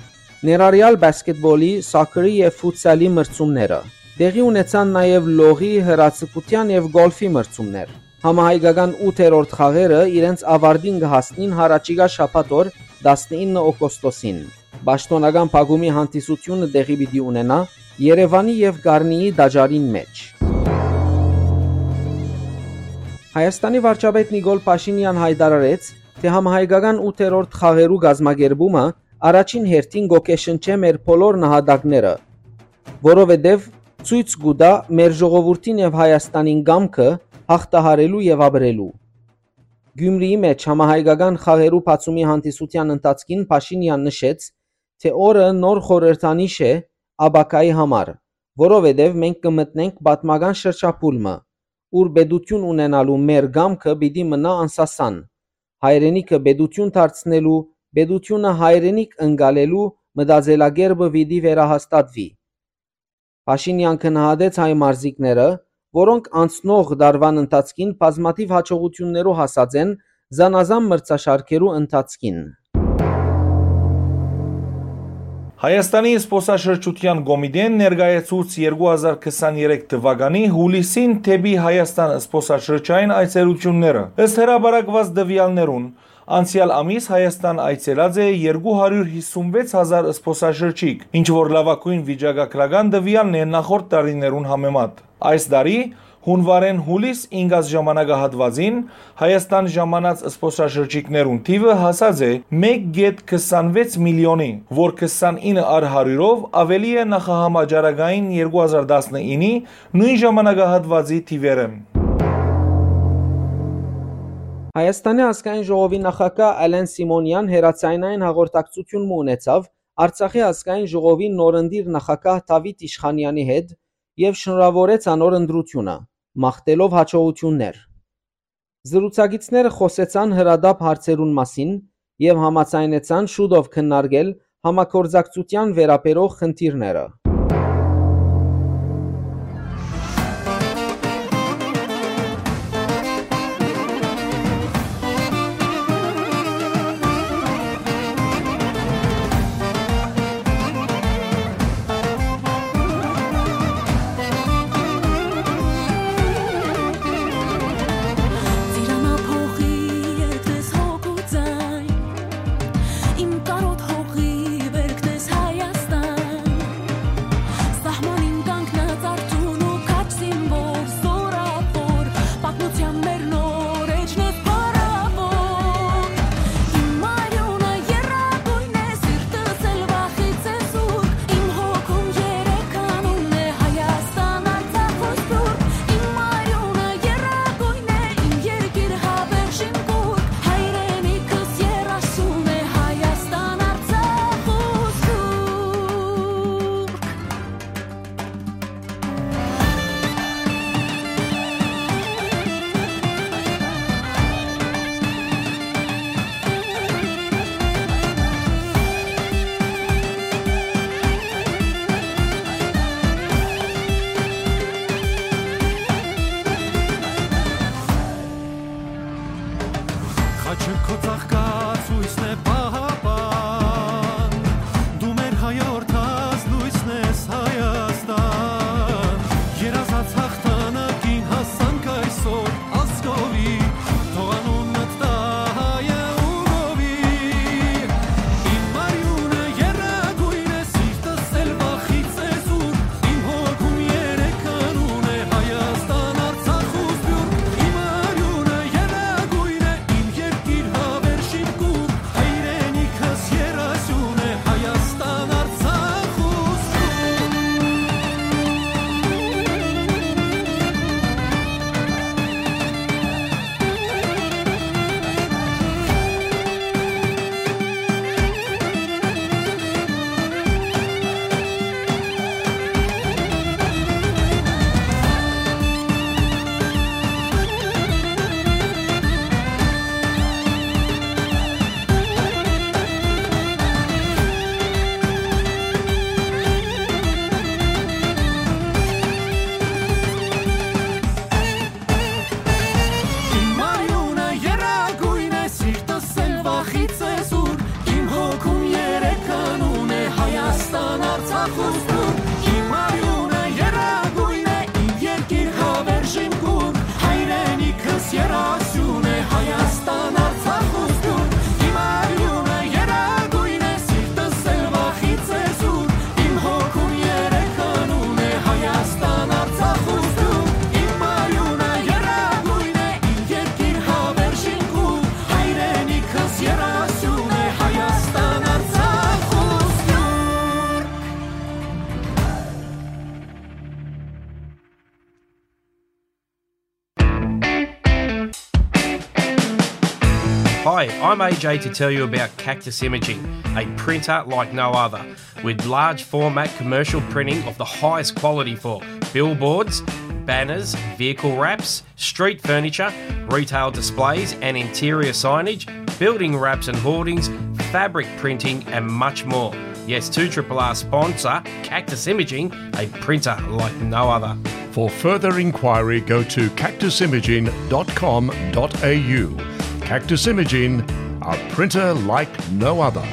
ներառեալ պասքեթբոլի, սոքերի եւ ֆուտսալի մրցումները։ Տեղի ունեցան նաեւ լողի, հրաձգութեան եւ գոլֆի մրցումներ։ Համահայկական ութերորդ խաղերը իրենց աւարտին կը հասնին յառաջիկայ շաբաթ օր, տասնինը օգոստոսին։ Պաշտօնական փակումի հանդիսութիւնը տեղի պիտի ունենայ Երեւանի եւ Կարնիի տաճարին մէջ։ Հայաստանի վարչապետ Նիկոլ Փաշինեան յայտարարեց, թէ համահայկական ութերորդ խաղերու կազմակերպումը առաջին հերթին կ'օգեշնչէ մեր բոլոր նահատակները, որովհետեւ ցոյց կու տայ մեր ժողովուրդին եւ Հայաստանին կամքը հաղթահարելու եւ ապրելու։ Գիւմրիի մէջ համահայկական խաղերու բացումի հանդիսութեան ընթացքին Փաշինեան նշեց, թէ օրը նոր խորհրդանիշ է ապագայի համար, որովհետեւ մենք կը մտնենք պատմական շրջափուլ մը, ուր պետութիւն ունենալու մեր կամքը պիտի մնայ անսասան։ Հայրենիքը պետութիւն դարձնելու, պետութիւնը հայրենիք ընկալելու մտածելակերպը պիտի վերահաստատուի։ Փաշինեան գնահատեց հայ մարզիկները, որոնք անցնող տարուան ընթացքին բազմաթիւ յաջողութիւններու հասած են զանազան մրցաշարքերու ընթացքին։ Հայաստանի զբօսաշրջութեան կոմիտէն ներկայացուց երկու հազար քսաներեք թուականի յուլիսին դէպի Հայաստան զբօսաշրջային այցելութիւնները։ Ըստ հրապարակուած տուեալներուն, անցեալ ամիս Հայաստան այցելած է երկու հարիւր հիսուն վեց հազար զբօսաշրջիկ, ինչ որ լաւագոյն վիճակագրական տուեալն է նախորդ տարիներուն համեմատ։ Այս տարի, յունուարէն յուլիս ինկած ժամանակահատուածին, Հայաստան ժամանած զբօսաշրջիկներուն թիւը հասած է մէկ կետ քսանվեց միլիոնի, որ քսանինը առ հարիւրով աւելի է նախահամաճարակային երկու հազար տասնինի նոյն ժամանակահատուածի թիւերէն։ Հայաստանի ազգային ժողովի նախագահ Ալեն Սիմոնեան հեռաձայնային հաղորդակցութիւն մը ունեցաւ Արցախի ազգային ժողովի նորընտիր նախագահ Դավիթ Իշխանեանի հետ եւ շնորհաւորեց անոր ընտրութիւնը, մաղթելով հաջողութիւններ։ Զրուցակիցները խօսեցան հրատապ հարցերուն մասին եւ համաձայնեցան շուտով քննարկել համագործակցութեան վերաբերող խնդիրները։ Ծիրանափոխի երգն ես հոգու ձայն, իմ կարոտ հողի բերքն ես Հայաստան, սահմանին կանգնած արթուն ու քաջ զինվոր, զորավոր, պատմության մեր նոր էջն ես փառավոր։ Իմ արիունը եռագոյն է, սիրտս էլ վախից է զուրկ, իմ հոգում երեք անուն է՝ Հայաստան, Արցախ ու Սփիւռք։ Իմ արիունը եռագոյն է, իմ երկիր հավերժին կուռք, հայրենիքս երազուն է՝ Հայաստան, Արցախ ու Սփիւռք։ Խաչը քո ծաղկած հոյսն է պահապան, դու մեր հայորդաց լոյսն ես Հայաստան, երազած հաղթանակին հասանք այսօր ազգովի, թող անունդ տա հայը ու գովի։ Իմ արիունը եռագոյն է, սիրտս էլ վախից է զուր, իմ հոգում երեք անուն է՝ Հայաստան, Արցախ ու Սփիւռք։ Իմ արիունը եռագոյն է, իմ երկիր հավերժին կուռ, հայրենիքս երազուն է՝ Հայաստան, Արցախ ու Սփիւռք։ Իմ արիունը եռագոյն է, սիրտս էլ վախից է զուր, իմ հոգում երեք անուն է՝ Հայաստան, Արցախ ու Սփիւռք։ Իմ արիունը եռագոյն է, իմ երկիր հավերժին կուռ, հայրենիքս երազուն է՝ Հայաստան, Արցախ ու Սփիւռք։ Իմ արիունը եռագոյն է, սիրտս էլ վախից է զուր, իմ հոգում երեք անուն է՝ Հայաստան, Արցախ ու Սփիւռք։ Իմ արիունը եռագոյն է, իմ երկիր հավերժին կուռ, հայրենիքս երազուն է՝ Հայաստան, Արցախ ու Սփիւռք։ Hi, I'm A J to tell you about Cactus Imaging, a printer like no other, with large format commercial printing of the highest quality for billboards, banners, vehicle wraps, street furniture, retail displays and interior signage, building wraps and hoardings, fabric printing, and much more. Yes, two triple R sponsor Cactus Imaging, a printer like no other. For further inquiry, go to cactus imaging dot com dot a u. Cactus Imaging, a printer like no other.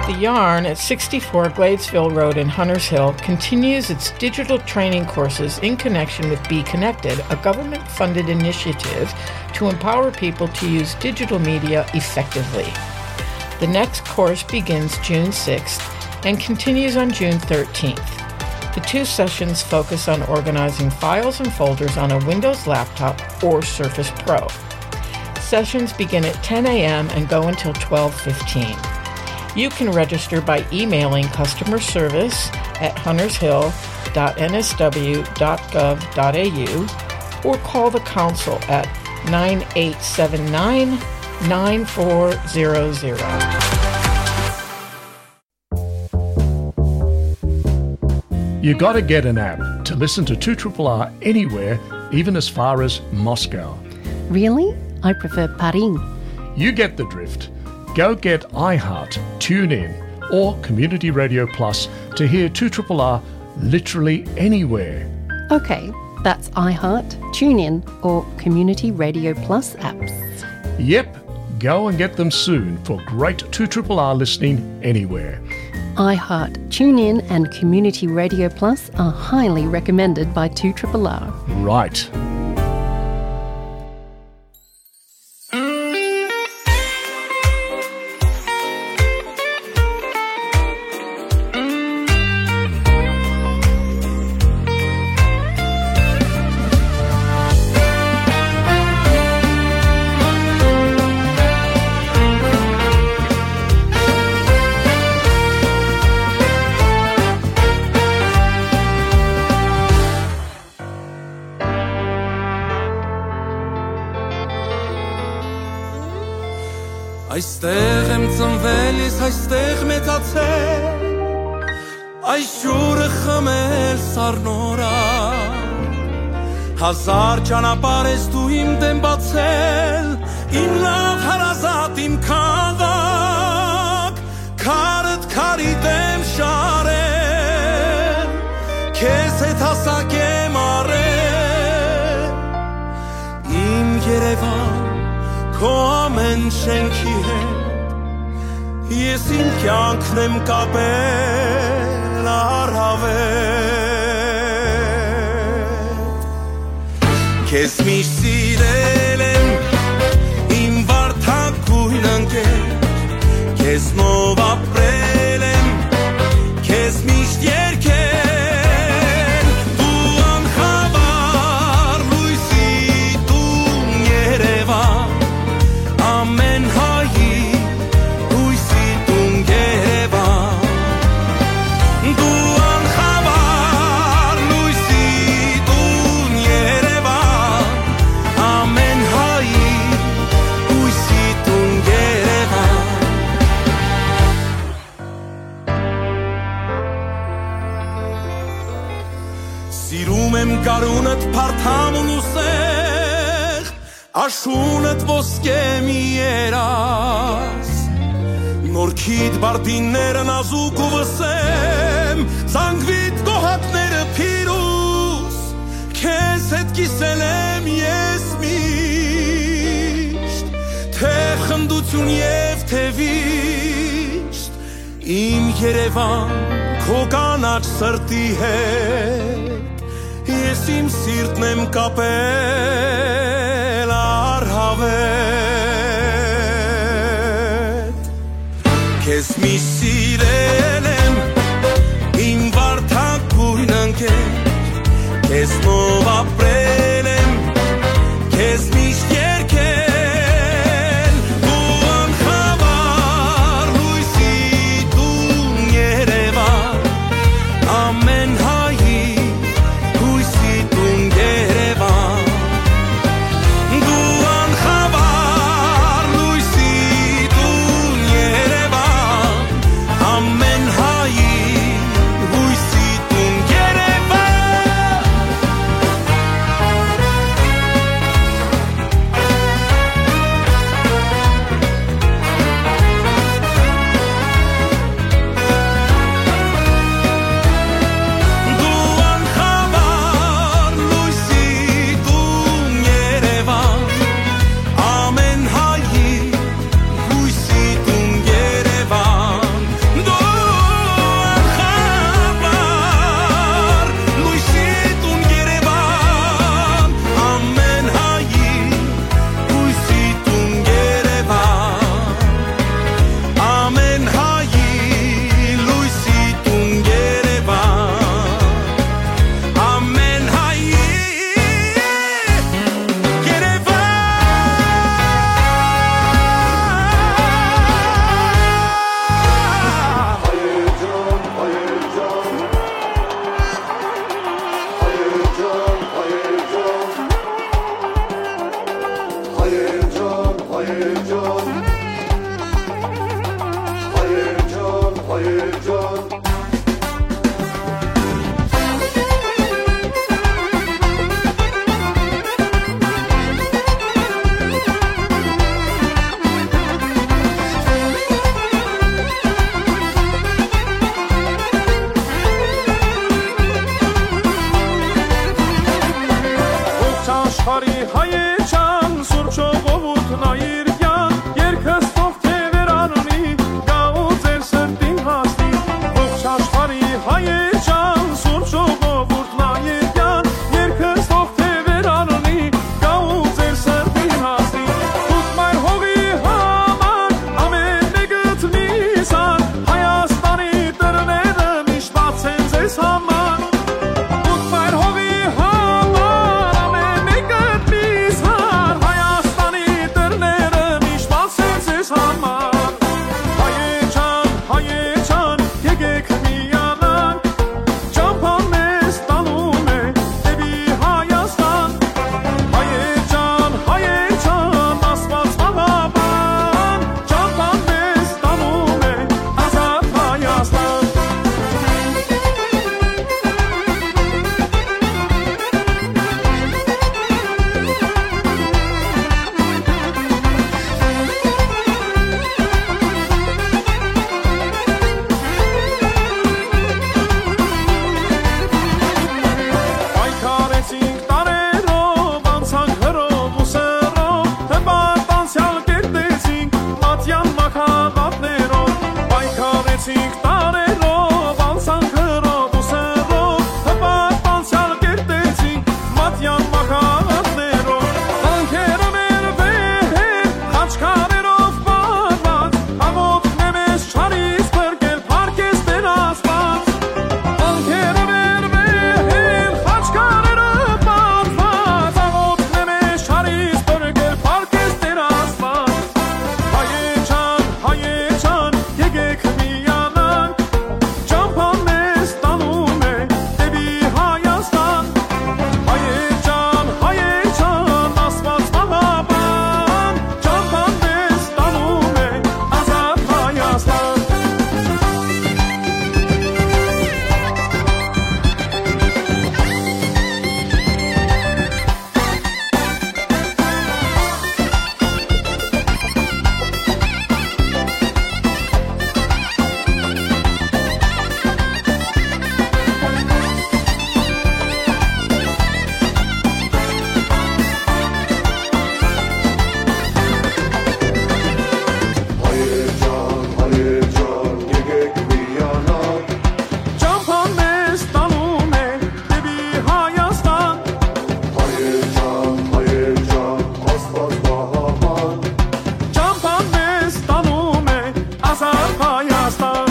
The Yarn at sixty-four Gladesville Road in Hunters Hill continues its digital training courses in connection with Be Connected, a government funded initiative to empower people to use digital media effectively. The next course begins June sixth and continues on June thirteenth. The two sessions focus on organizing files and folders on a Windows laptop or Surface Pro. Sessions begin at ten a.m. and go until twelve fifteen. You can register by emailing customer service at huntershill.nsw.gov.au or call the council at nine eight seven nine, nine four zero zero. You gotta get an app to listen to two triple R anywhere, even as far as Moscow. Really? I prefer Paris. You get the drift. Go get iHeart, TuneIn, or Community Radio Plus to hear two triple R literally anywhere. Okay, that's iHeart, TuneIn, or Community Radio Plus apps. Yep, go and get them soon for great two triple R listening anywhere. iHeart, TuneIn, and Community Radio Plus are highly recommended by two triple R. Right. Այստեղ եմ ծնվել ես, այստեղ մեծացել, այս ջուրը խմել սառնորա։ Հազար ճանապարհ ես դու իմ դեմ բացել, իմ լաւ հարազատ, իմ քաղաք, քարդ քարի դեմ շարել, քեզ հետ հասակ եմ առել, իմ Երևան, քո ամէն շենքի հետ, ես իմ կյանքն եմ կապել առաւել։ Քեզ միշտ սիրել եմ, իմ վարդագույն ընկեր, քեզնով ապրել եմ, քեզ միշտ երգել, դու անխավար լույսի տուն Երևան, ամէն հայի հույսի տուն Երևան, դու անխավար լույսի տուն Երևան, ամէն հայի հույսի տուն Երևան։ Սիրում եմ գարունդ, փարթամ ու նուսեղ, աշունդ ոսկե մի երազ, նորքիդ բարդինները նազուկ ու վսեմ, զանգվիդ գոհակները փիրուզ, քեզ հետ կիսել եմ ես միշտ, թե խնդություն և թե վիշտ, իմ Երևան, քո կանաչ սրտի հետ, ես իմ սիրտն եմ կապել առհավետ։ Քեզ միշտ սիրել եմ, իմ վարդագույն ընկեր, քեզնով ապրել եմ, քեզ միշտ երգել, դու անխավար լույսի տուն Երևան, ամեն հայի հույսի տուն Երևան, դու անխավար լույսի տուն Երևան, ամեն հայի հույսի տուն Երևան։ Բարի հայեչան, սուրբ ժողովուրդն այրկյան, երկս թող թեւեր առնի, գա ու ձեր սրտին հասնի։ Ողջ աշխարհի հայեչան, սուրբ ժողովուրդն այրկյան, երկս թող թեւեր առնի, գա ու ձեր սրտին հասնի։ Դուք մայր հողի համար ամեն մեկդ միզան, Հայաստանի դռները միշտ բաց են ձեզ համար։ Դուք մայր հողի համար ամեն մեկդ միզան, Հայաստանի դռները միշտ բաց են ձեզ համար։ Հայեչան, հայեչան, եկեք միանանք, ճամփան մեզ տանում է դեպի Հայաստան։ Հայեչան, հայեչան, Աստված պահապան, ճամփան մեզ տանում է ազատ Հայաստան։ Պայքարեցինք տարերով, անցանք հրով ու սրով, հպարտ անցեալ կերտեցինք մատյան մահաբատներով։ Պայքարեցինք տարերով, անցանք հրով ու սրով, հպարտ անցեալ կերտեցինք մատյան մահաբատներով։ Վանքերը մեր վեհեր, խաչքարերով պարված, աղօթքն է մեզ չարից փրկել, փառք ես Տեր Աստված։ Վանքերը մեր վեհեր, խաչքարերը պարված, աղօթքն է մեզ չարից փրկել, փառք ես Տեր Աստված։ Հայեչան, հայեչան, եկեք միանանք, ճամփան մեզ տանում է դեպի Հայաստան։ Հայեչան, հայեչան, Աստված պահապան, ճամփան մեզ տանում է ազատ Հայաստան։ Հայեր ջան, հայեր ջան, եկեք միանանք, ճամփան մեզ տանում է դեպի Հայաստան։ Հայեր ջան, հայեր ջան, Աստված պահապան, ճամփան մեզ տանում է ազատ Հայաստան։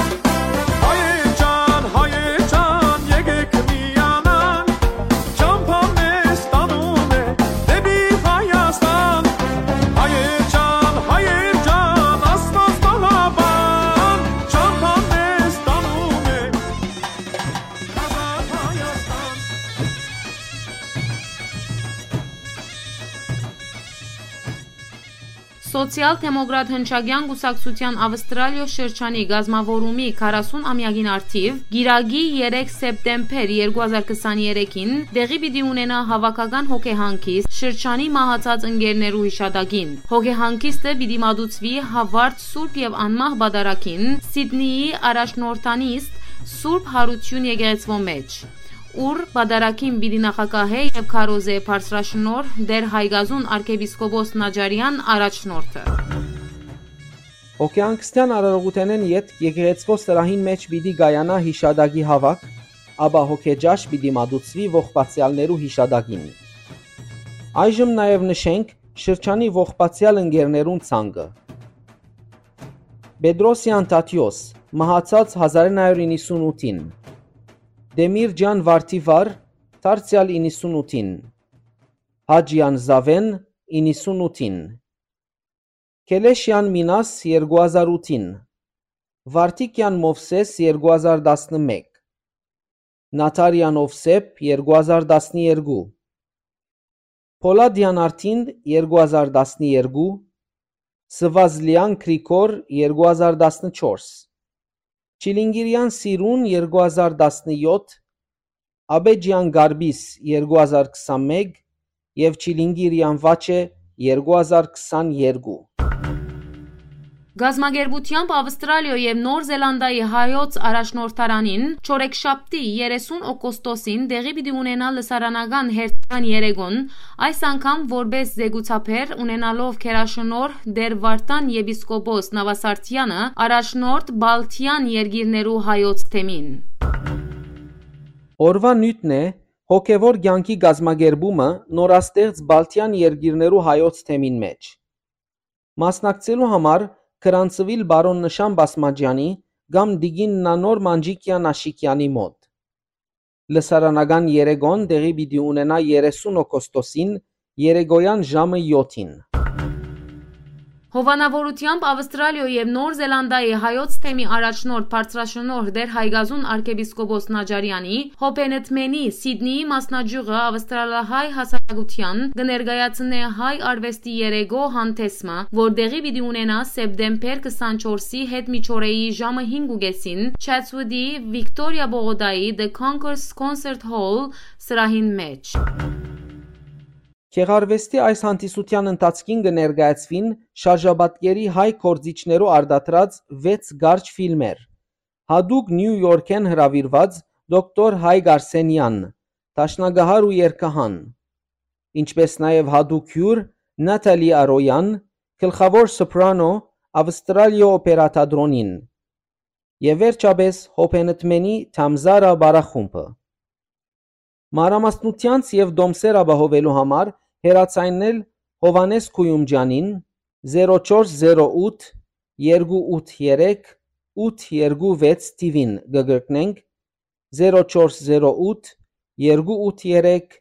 Հայեր ջան, հայեր ջան, եկեք միանանք, ճամփան մեզ տանում է դեպի Հայաստան։ Հայեր ջան, հայեր ջան, Աստված պահապան, ճամփան մեզ տանում է ազատ Հայաստան։ Սոցիալ-դեմոկրատ հնչակեան կուսակցութեան Ավստրալիոյ շրջանի կազմաւորումի քառասուն ամեակին առթիւ, կիրակի երեք սեպտեմբեր երկու հազար քսաներեքին, տեղի պիտի ունենայ հաւաքական հոգեհանգիստ շրջանի մահացած ընկերներու յիշատակին։ Հոգեհանգիստը պիտի մատուցուի Հովարդ Սուրբ եւ Անմահ Պատարագին, Սիդնիի առաջնորդանիստ Սուրբ Յարութիւն եկեղեցւոյ մէջ, ուր պատարագին պիտի նախագահէ եւ քարոզէ բարձրաշնորհ Տէր Հայկազուն արքեպիսկոպոս Նաճարեան առաջնորդը։ Հոգեհանգստեան արարողութենէն ետք եկեղեցւոյ սրահին մէջ պիտի կայանայ յիշատակի հաւաք, ապա հոգեճաշ պիտի մատուցուի ողբացեալներու յիշատակին։ Այժմ նաեւ նշենք շրջանի ողբացեալ ընկերներուն ցանկը։ Պետրոսեան Թադէոս, մահացած հազար իննսուն ութին։ Տեմիրճեան Վարդիվար, դարձեալ իննսուն ութին։ Հաճեան Զաւէն, իննսուն ութին։ Քելեշեան Մինաս, երկու հազար ութին։ Վարդիկեան Մովսէս, երկու հազար տասնմէկ։ Նաթարեան Ովսէփ, երկու հազար տասներկու։ Փոլադեան Արտին, երկու հազար տասներկու։ Սվազլեան Գրիգոր, երկու հազար տասնչորս։ Չիլինգիրեան Սիրուն, երկու հազար տասնյոթ, Աբեջեան Գարբիս, երկու հազար քսանմէկ, եւ Չիլինգիրեան Վաչէ, երկու հազար քսաներկու։ Կազմակերպութեամբ Ավստրալիոյ եւ Նոր Զելանդիայի հայոց առաջնորդարանին չորեքշաբթի երեսուն օգոստոսին տեղի պիտի ունենայ լսարանական հերթական երեկոն, այս անգամ որպէս զեկուցաբեր, ունենալով գերաշնորհ Տէր Վարդան եպիսկոպոս Նավասարդեանը, առաջնորդ Բալթեան երկիրներու հայոց թեմին։ Օրուան նիւթն է հոգեւոր կեանքի կազմակերպումը նորաստեղծ Բալթեան երկիրներու հայոց թեմին մէջ։ Մասնակցելու համար գրանցուիլ պարոն Նշան Բասմաճեանի կամ տիկին Նանոր Մանջիկեան Աշիկեանի մօտ։ Լսարանական երեկոն տեղի պիտի ունենայ երեսուն օգոստոսին երեկոյան ժամը եօթին։ Հովանաւորութեամբ Ավստրալիոյ եւ Նոր Զելանդիայի հայոց թեմի առաջնորդ բարձրաշնորհ Տէր Հայկազուն արքեպիսկոպոս Նաճարեանի, Հոբենտմենի Սիդնիի մասնաճիւղը ավստրալահայ հասարակութեան կը ներկայացնէ հայ արուեստի երեկոյ հանդէսը, որ տեղի պիտի ունենայ սեպտեմբեր քսանչորսի հետ միջօրեի ժամը հինգ ու կէսին Չեթսուտի Վիկտորիա պողոտայի The Concourse Concert Hall սրահին մէջ։ Գեղարուեստի այս հանդիսութեան ընթացքին կը ներկայացուին շարժապատկերի հայ գործիչներու արտադրած վեց կարճ ֆիլմեր, յատուկ Նիու Յորքէն հրաւիրուած դոկտոր Հայկ Արսենեան, դաշնակահար ու երգահան, ինչպէս նաեւ յատուկ հիւր Նաթալի Արոյան, գլխաւոր սոպրանո Ավստրալիոյ օպերա թատրոնին եւ վերջապէս Հոբենտմենի Թամզարա պարախումբը։ Մանրամասնութեանց եւ տոմսեր ապահովելու համար հեռաձայնել Հովհաննէս Քոյումճեանին, զերո չորս զերո ութ երկու ութ երեք ութ երկու վեց թիւին կը կրկնենք, զերո չորս զերո ութ երկու ութ երեք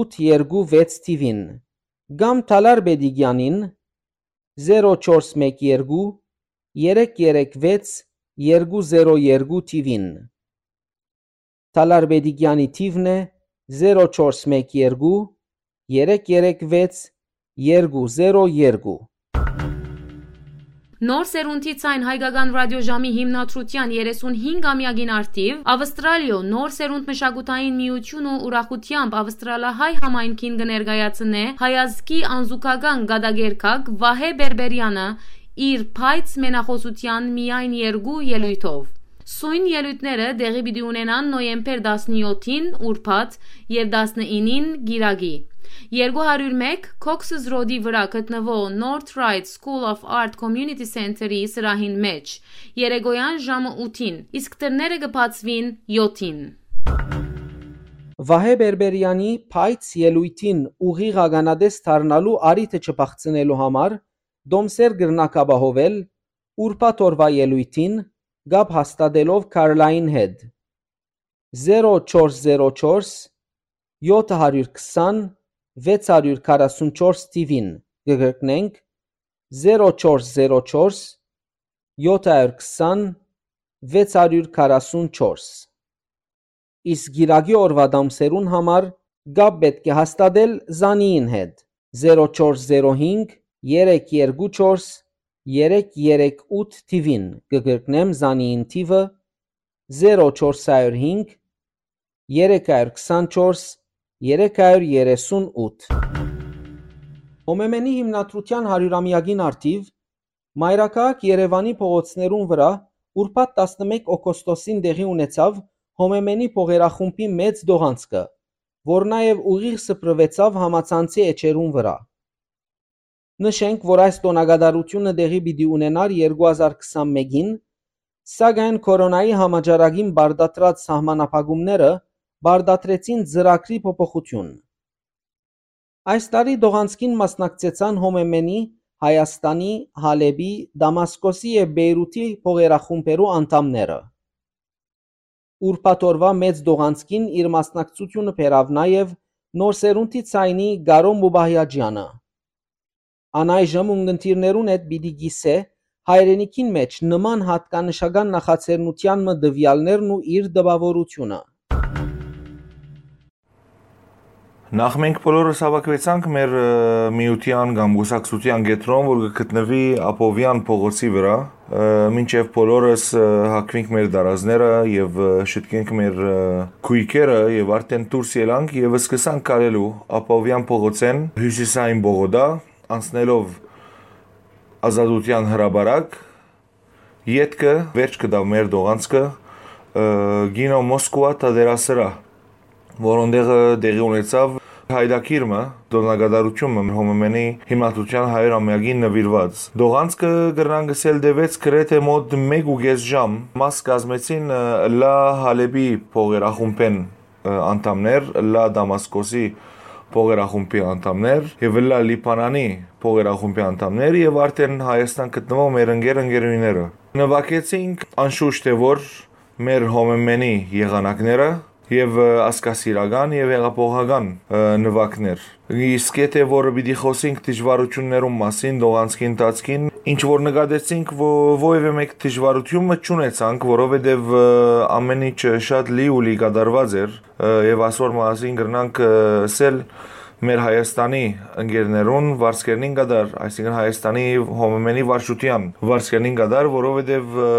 ութ երկու վեց թիւին, կամ Թալար Պետիկեանին, զերո չորս մեկ երկու երեք երեք վեց երկու զերո երկու թիւին։ Թալար Պետիկեանի թիւն է զերո չորս մեկ երկու երեք երեք վեց երկու զերո երկու։ Նոր սերունդի ձայն հայկական ռադիոժամի հիմնադրութեան երեսունհինգ ամեակին առթիւ Ավստրալիոյ նոր սերունդ մշակութային միութիւնը ուրախութեամբ ավստրալահայ համայնքին կը ներկայացնէ հայազգի անզուգական կատակերգակ Վահէ Պերպերեանը իր փայծ մենախօսութեան միայն երկու ելոյթով։ Սոյն ելոյթները տեղի պիտի ունենան նոյեմբեր տասնեօթին, ուրբաթ, եւ տասնինին, կիրակի։ Երկու հարիւր մէկ Cox's Road-ի վրայ գտնուող North Ryde School of Art Community Center-ի սրահին մէջ, երեկոյան ժամը ութին, իսկ դռները կը բացուին եօթին։ Վահէ Պերպերեանի փայծ ելոյթին ուղիղ ականատես դառնալու առիթը չփախցնելու համար տոմսեր կրնաք ապահովել ուրբաթ օրուայ ելոյթին կապ հաստատելով Քարլային հետ։ Զերո չորս զերո չորս յոթ հարիւր քսան վեց հարիւր քառասուն չորս թիւին, կը կրկնենք, զերո չորս զերո չորս յոթ հարիւր քսան վեց հարիւր քառասուն չորս։ Իսկ կիրակի օրուայ տոմսերուն համար կապ պէտք է հաստատել Զանիին հետ, զերո չորս զերո հինգ երեք երկու չորս երեք երեք ութ թիւին, կը կրկնեմ Զանիին թիւը, զերո չորս հարիւր հինգ երեք հարիւր քսանչորս երեք հարիւր երեսուն ութ։ Հոմեմենի հիմնադրութեան հարիւրամեակին առթիւ մայրաքաղաք Երեւանի փողոցներուն վրայ ուրբաթ տասնմէկ օգոստոսին տեղի ունեցաւ Հոմեմենի փողերախումբի մեծ տողանցքը, որ նաեւ ուղիղ սփռուեցաւ համացանցի էջերուն վրայ։ Նշենք, որ այս տօնակատարութիւնը տեղի պիտի ունենար երկու հազար քսանմէկին, սակայն քորոնայի համաճարակին պարտադրած սահմանափակումները պարտադրեցին ծրագրի փոփոխութիւն։ Այս տարի տողանցքին մասնակցեցան Հոմեմենի, Հայաստանի, Հալէպի, Դամասկոսի եւ Պէյրութի փողերախումբերու անդամները։ Ուրբաթ օրուայ մեծ տողանցքին իր մասնակցութիւնը բերաւ նաեւ Նոր սերունդի ձայնի Կարո Մուբահեաճեանը։ Ան այժմ ունկնդիրներուն հետ պիտի կիսէ հայրենիքին մէջ նման յատկանշական նախաձեռնութեան մը տուեալներն ու իր տպաւորութիւնը։ Նախ մենք բոլորս հավաքուեցանք մեր, ը, միութեան կամ կուսակցութեան կեդրոն, որ կը գտնուի Աբովեան փողոցի վրայ, ը, մինչեւ բոլորս, ը, հագուինք մեր դարազները եւ, ը, շտկենք մեր, ը, գոյքերը եւ արդեն դուրս ելանք եւ սկսանք քալելու Աբովեան փողոցէն հիւսիսային պողոտա, անցնելով Ազատութեան հրապարակ, ետքը վերջ կտաւ մեր տողանցքը, ը, կինո Մոսկուա թատերասրահ, որուն տեղը տեղի ունեցաւ հայտագիր մը, տօնակատարութիւն մը, Հոմեմենի հիմնադրութեան հարիւր ամեակին նուիրուած։ Տողանցքը կրնան գսել տեւեց գրեթէ մօտ մէկ ու կէս ժամ, մաս կազմեցին, ը, Լա Հալէպի փողերախումբէն, ը, անդամներ, Լա Դամասկոսի փողերախումբի անդամներ եւ Լա Լիբանանի փողերախումբի անդամներ եւ արդեն Հայաստան գտնուող մեր ընկեր ընկերուհիները։ Նուագեցինք անշուշտ է որ մեր Հոմեմենի եղանակները եւ, ը, ազգասիրական եւ հեղափոխական, ը, նուագներ։ Իսկ եթե որ պիտի խոսենք դժվարություններուն մասին, տողանցքի ընթացքին, ինչ որ նկատեցինք, ո-, որևէ մէկ դժվարություն մը չունեցանք, որովհետեւ, ը, ամէն ինչ շատ լի ու լի կատարուած էր, ը, եւ ասոր մասին կրնանք, ը, ասել մեր Հայաստանի ընկերներուն վարձկերնին կատար, այսինքն Հայաստանի Հոմեմենի վարչութեան վարձկերնին կատար, որովհետեւ, ը,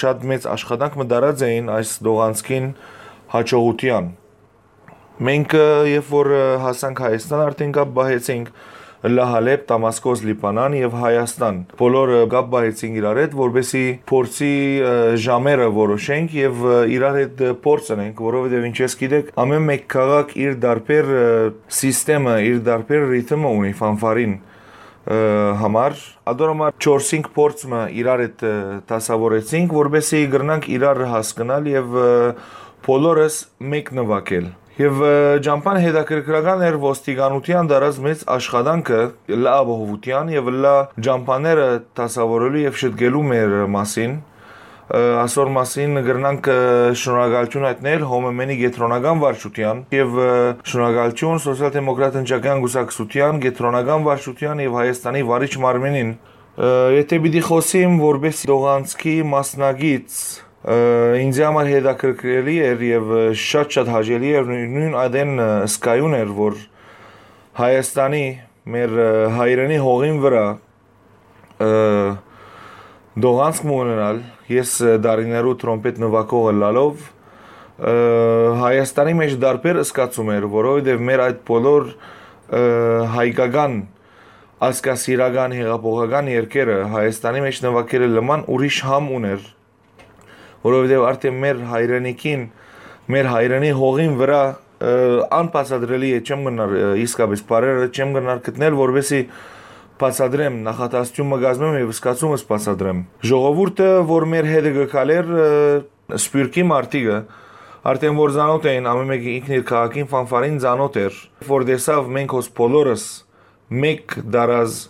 շատ մեծ աշխատանք մը տարած էին այս տողանցքին հաջողութեան։ Մենք, ը, երբ որ, ը, հասանք Հայաստան, արդեն կապ պահեցինք Լա Հալէպ, Դամասկոս, Լիբանան եւ Հայաստան։ Բոլորը կապ պահեցինք իրար հետ, որպեսզի փորձի, ը, ժամերը որոշենք եւ, ը, իրար հետ, ը, փորձ ընենք, որովհետեւ ինչպես գիտեք, ամէն մէկ քաղաք իր տարբեր, ը, սիստեմը, իր տարբեր ռիթմը ունի ֆանֆարին, ը, համար։ Ադոր համար չորսինք փորձ մը իրար հետ, ը, դասավորեցինք, որպեսզի կրնանք իրար հասկնալ եւ, ը, բոլորս մէկ նուագել։ Եւ, ը, ճամբան հետաքրքրական էր ոստիկանութեան դարած մեծ աշխատանքը լա ապահովութեան եւ լա ճամբաները դասավորելու եւ շտկելու մեր մասին։ Ը, ասոր մասին կրնանք, ը, շնորհակալություն հայտնել Հոմեմենի կեդրոնական վարչութեան եւ, ը, շնորհակալություն Սոցիալ-դեմոկրատ ընտրական կուսակցութեան, կեդրոնական վարչութեան եւ Հայաստանի վարիչ մարմինին։ Ը, եթե պիտի խոսիմ որպես տողանցքի մասնակից, ը, ինձ համար հետաքրքրելի էր եւ, ը, շատ-շատ հաճելի էր, նույն, նույն ադեն, ը, սկայուն էր, որ Հայաստանի մեր, ը, հայրենի հողին վրա, ը, տողանցք մը ունենալ, ես, ը, դարիներու տրոմպետ նուագող ըլլալով, ը, Հայաստանի մեջ դարբեր սկացում էր, որովհետեւ մեր այդ բոլոր, ը, հայկական ազգասիրական, հեղափոխական երկերը Հայաստանի մեջ նվագելը լման ուրիշ համ ուներ, որովհետեւ արդեն մեր հայրենիքին, մեր հայրենի հողին վրա, ը, անբացատրելի է, չեմ գնար, ը, իսկապես բարերը չեմ գնար գտնել, որովհետեւ բացատրեմ, նախատասություն մը կազմեմ եւ սկացումս բացատրեմ։ Ժողովուրդը, որ մեր հետը կգալեր, ը, Սփիւռքի մարդիկը, արդեն որ ծանոթ էին, ամէն մէկը ինքն իր քաղաքին ֆանֆարին ծանոթ էր, որ տեսաւ մենք հոս բոլորս մէկ դարազ,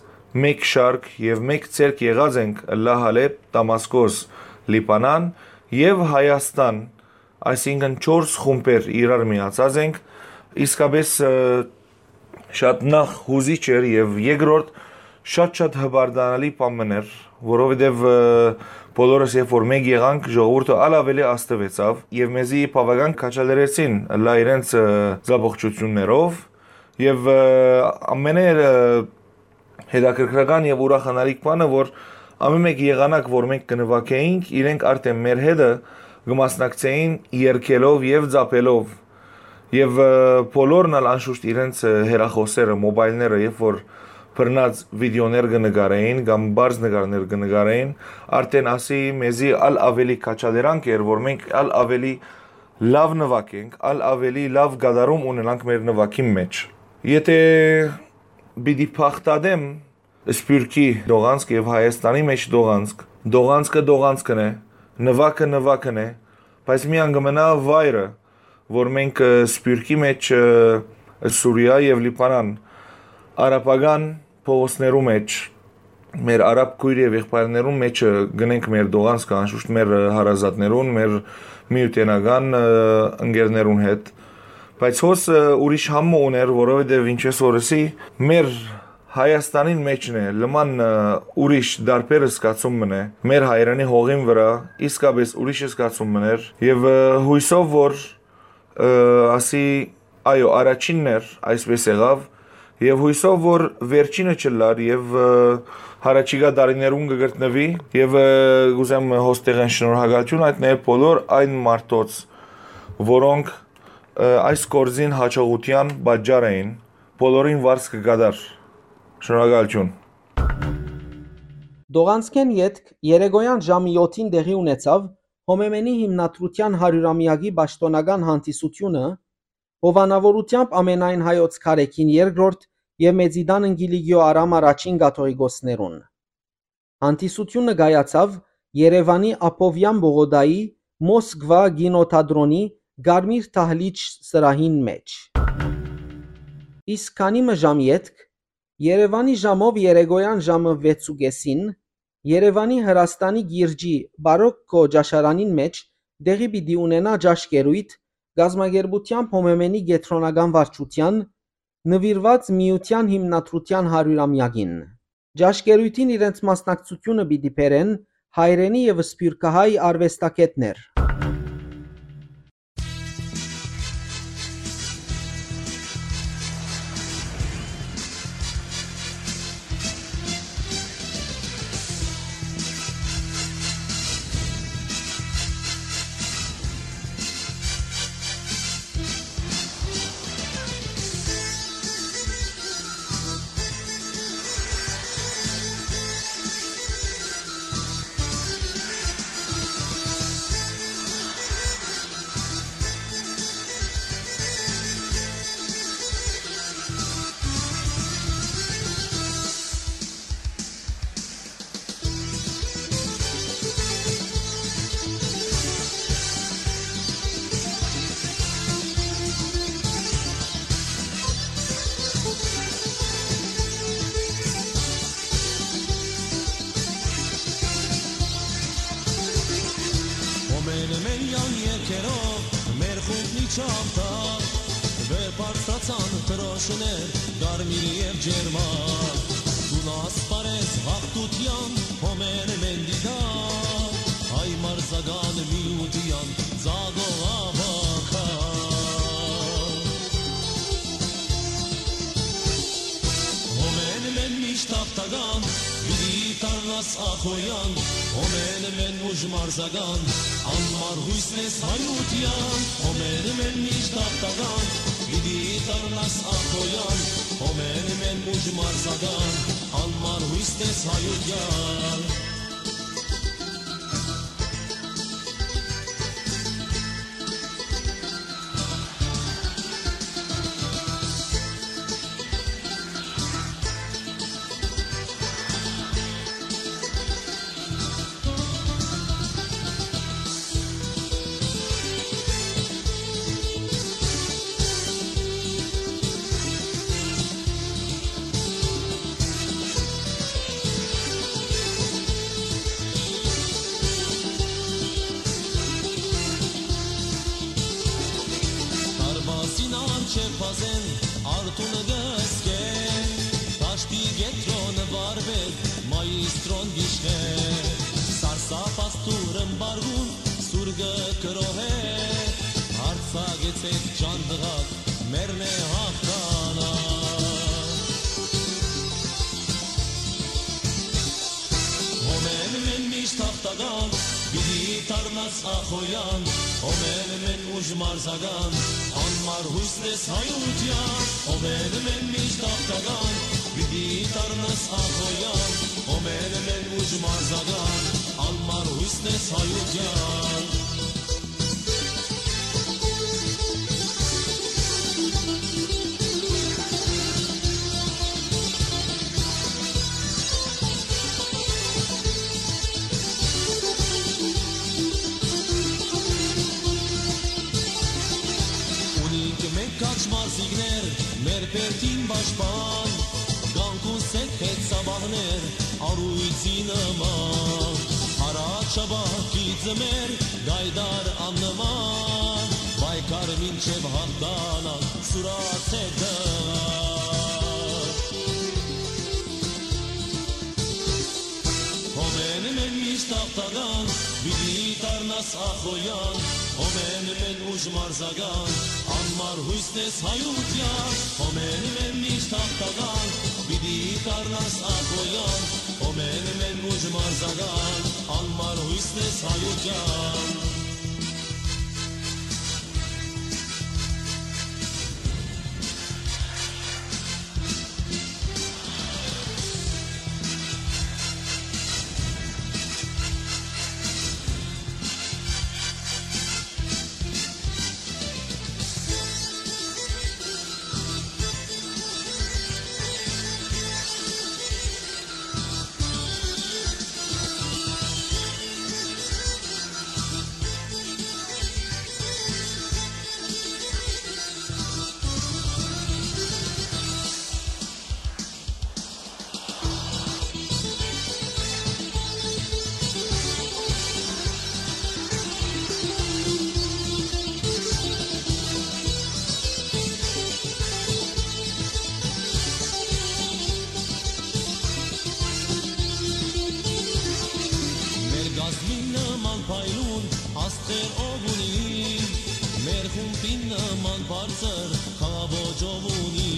մէկ շարք եւ մէկ ձեռք եղած ենք Լա Հալէպ, Դամասկոս, Լիբանան եւ Հայաստան, այսինքն չորս խումբեր իրար միացած ենք, իսկապես, ը, շատ նախ հուզիչ էր եւ երկրորդ շատ-շատ հպարտանալի բան մըն էր, որովհետեւ, ը, բոլորս երբ որ մէկ եղանք, ժողովուրդը ալ ավելի ազդուեցաւ եւ մեզի բաւական քաջալերեցին լա իրենց, ը, զապողջություններով եւ, ը, ամենէ, ը, հետաքրքրական եւ ուրախանալիք բանը, որ ամէն մէկ եղանակ, որ մենք կը նվագեինք, իրենք արդեն մեր հետը կը մասնակցեին երգելով եւ ծափելով։ Եւ, ը, բոլորն ալ անշուշտ իրենց, ը, հեռախոսները, մոբայլները, երբ որ բռնած վիդեոներ կը նկարեին կամ բարձ նկարներ կը նկարեին, արդեն ասի մեզի ալ ավելի քաջալերանք էր, որ մենք ալ ավելի լաւ նվագենք, ալ ավելի լաւ կատարում ունենանք մեր նվագին մեջ։ Եթե պիտի փախտատեմ Սփիւռքի դողանցք եւ Հայաստանի մեջ դողանցք, դողանցքը դողանցքն է, նվագը նվագն է, բայց միան կը մնայ վայրը, որ մենք, ը, Սփիւռքի մեջ, ը, Սուրիա եւ Լիբանան, արաբական փողոցներու մեջ, մեր արաբ քոյր եւ եղբայրներուն մեջը գնենք մեր դողանցքը, անշուշտ մեր, ը, հարազատներուն, մեր միութենական, ը, ընկերներուն հետ։ Բայց հոս, ը, ուրիշ համ մը ուներ, որովհետեւ ինչպես որ ըսի, մեր Հայաստանին մեջն է, լման, ը, ուրիշ դարբեր զգացում մն է, մեր հայրենի հողին վրա իսկապես ուրիշ զգացում մն էր, եւ, ը, հույսով որ, ը, ասի, այո, առաջինն էր, այսպես եղաւ, եւ հույսով որ վերջինը չլար եւ, ը, հարաճիգա դարիներուն կը գտնուի, եւ, ը, կուզեմ հոստեղեն շնորհակալություն հայտնել բոլոր այն մարդոց, որոնք, ը, այս գործին հաջողության պատճառ էին, բոլորին վարձ կը կատար։ Շնորհակալություն։ Տողանցքէն ետք երեկոյան ժամը եօթին տեղի ունեցաւ Հոմեմենի հիմնադրութեան հարիւրամեակի պաշտօնական հանդիսութիւնը, հովանաւորութեամբ ամենայն հայոց Քարեքին երկրորդ եւ Մեծիտան Կիլիկիոյ Արամ առաջին կաթողիկոսներուն։ Հանդիսութիւնը կայացաւ Երեւանի Աբովեան պողոտայի Մոսկվա կինոթատրոնի Կարմիր Դահլիճ սրահին մէջ։ Իսկ քանի մը ժամ ետք, Երեւանի ժամով երեկոյան ժամը վեց ու կէսին, Երեւանի Հրաստանի կիրճի Բարոկկո ճաշարանին մէջ տեղի պիտի ունենայ ճաշկերոյթ կազմակերպութեամբ Հոմեմենի կեդրոնական վարչութեան, նուիրուած միութեան հիմնադրութեան հարիւրամեակին։ Ճաշկերոյթին իրենց մասնակցութիւնը պիտի բերեն հայրենի եւ սփիւռքահայ արուեստագէտներ։ Հոմեն մեն յան երկերով մեր խումբն իջավ տակ, վեր բարձրացան դրոշներ կարմիր եւ ջերմակ։ Դուն ասպարես հաղթութեան, հոմեն մեն դիտակ, հայ մարզական միութեան ծագող աբակա։ Հոմեն մեն միշտ հաղթական, պիտի դառնաս ախոյան, հոմեն մեն ուժ մարզական, անմար յուսն ես հայութեան, հոմեն մեն միշտ հաղթական, պիտի դառնաս ախոյան, հոմեն մեն ուժ մարզական, անմար յուսն ես հայութեան։ Դարպասին առջեւ բազեն արթուն կը սկե, դաշտի կեդրոնը վարպետ մայիստրոն գիշխէ, սարսափած դուրն բարգուն սուրկը կրոհէ, արձակեցէք ջան տղաք, մերն է հաղթանակ։ Հոմեն մեն միշտ հաղթական, պիտի դառնաս ախոյան, հոմեն մեն ուժ մարզական, անմար յուսն ես հայութեան, հոմեն մեն միշտ հաղթական, պիտի դառնաս ախոյան, հոմեն մեն ուժ մարզական, անմար յուսն ես հայութեան։ Ունինք մենք քաջ մարզիկներ, մեր բերդին պաշտպան, կանգուն սեկ հետ սաբահներ, առույցի նման, առաջապահ գիծը մեր գայդար աննման, պայքար մինչև հաղթանակ, սուրացեք տղա։ Հոմեն մեն միշտ հաղթական, պիտի դառնաս ախոյան, հոմեն մեն ուժ մարզական, անմար յուսն ես հայութեան, հոմեն մեն միշտ հաղթական, պիտի դառնաս ախոյան, հոմեն մեն ուժ մարզական, անմար յուսն ես հայութեան։ Խումբին նման բարձր խաղաոճով ունի,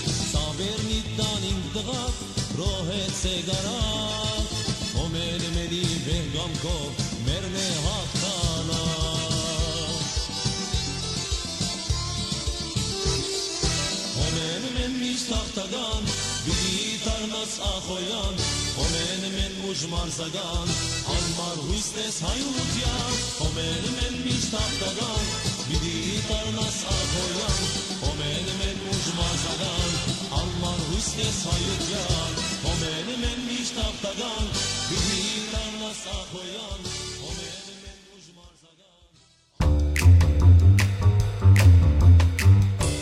սա վերնի տանին տղաք, ռոհեցե գարակ, հոմեն մենի վեհ կամքով մերն է հաղթանակ։ Հոմեն մեն միշտ հաղթական, պիտի դառնաս ախոյան, հոմեն մեն ուժ մարզական, անմար յոյս տես հայութեան, հոմեն մեն միշտ հաղթական, պիտի դառնաս ախոյան, հոմեն մեն ուժ մարզական, անմար յոյս տես հայութեան, հոմեն մեն միշտ հաղթական, պիտի դառնաս ախոյան, հոմեն մեն ուժ մարզական։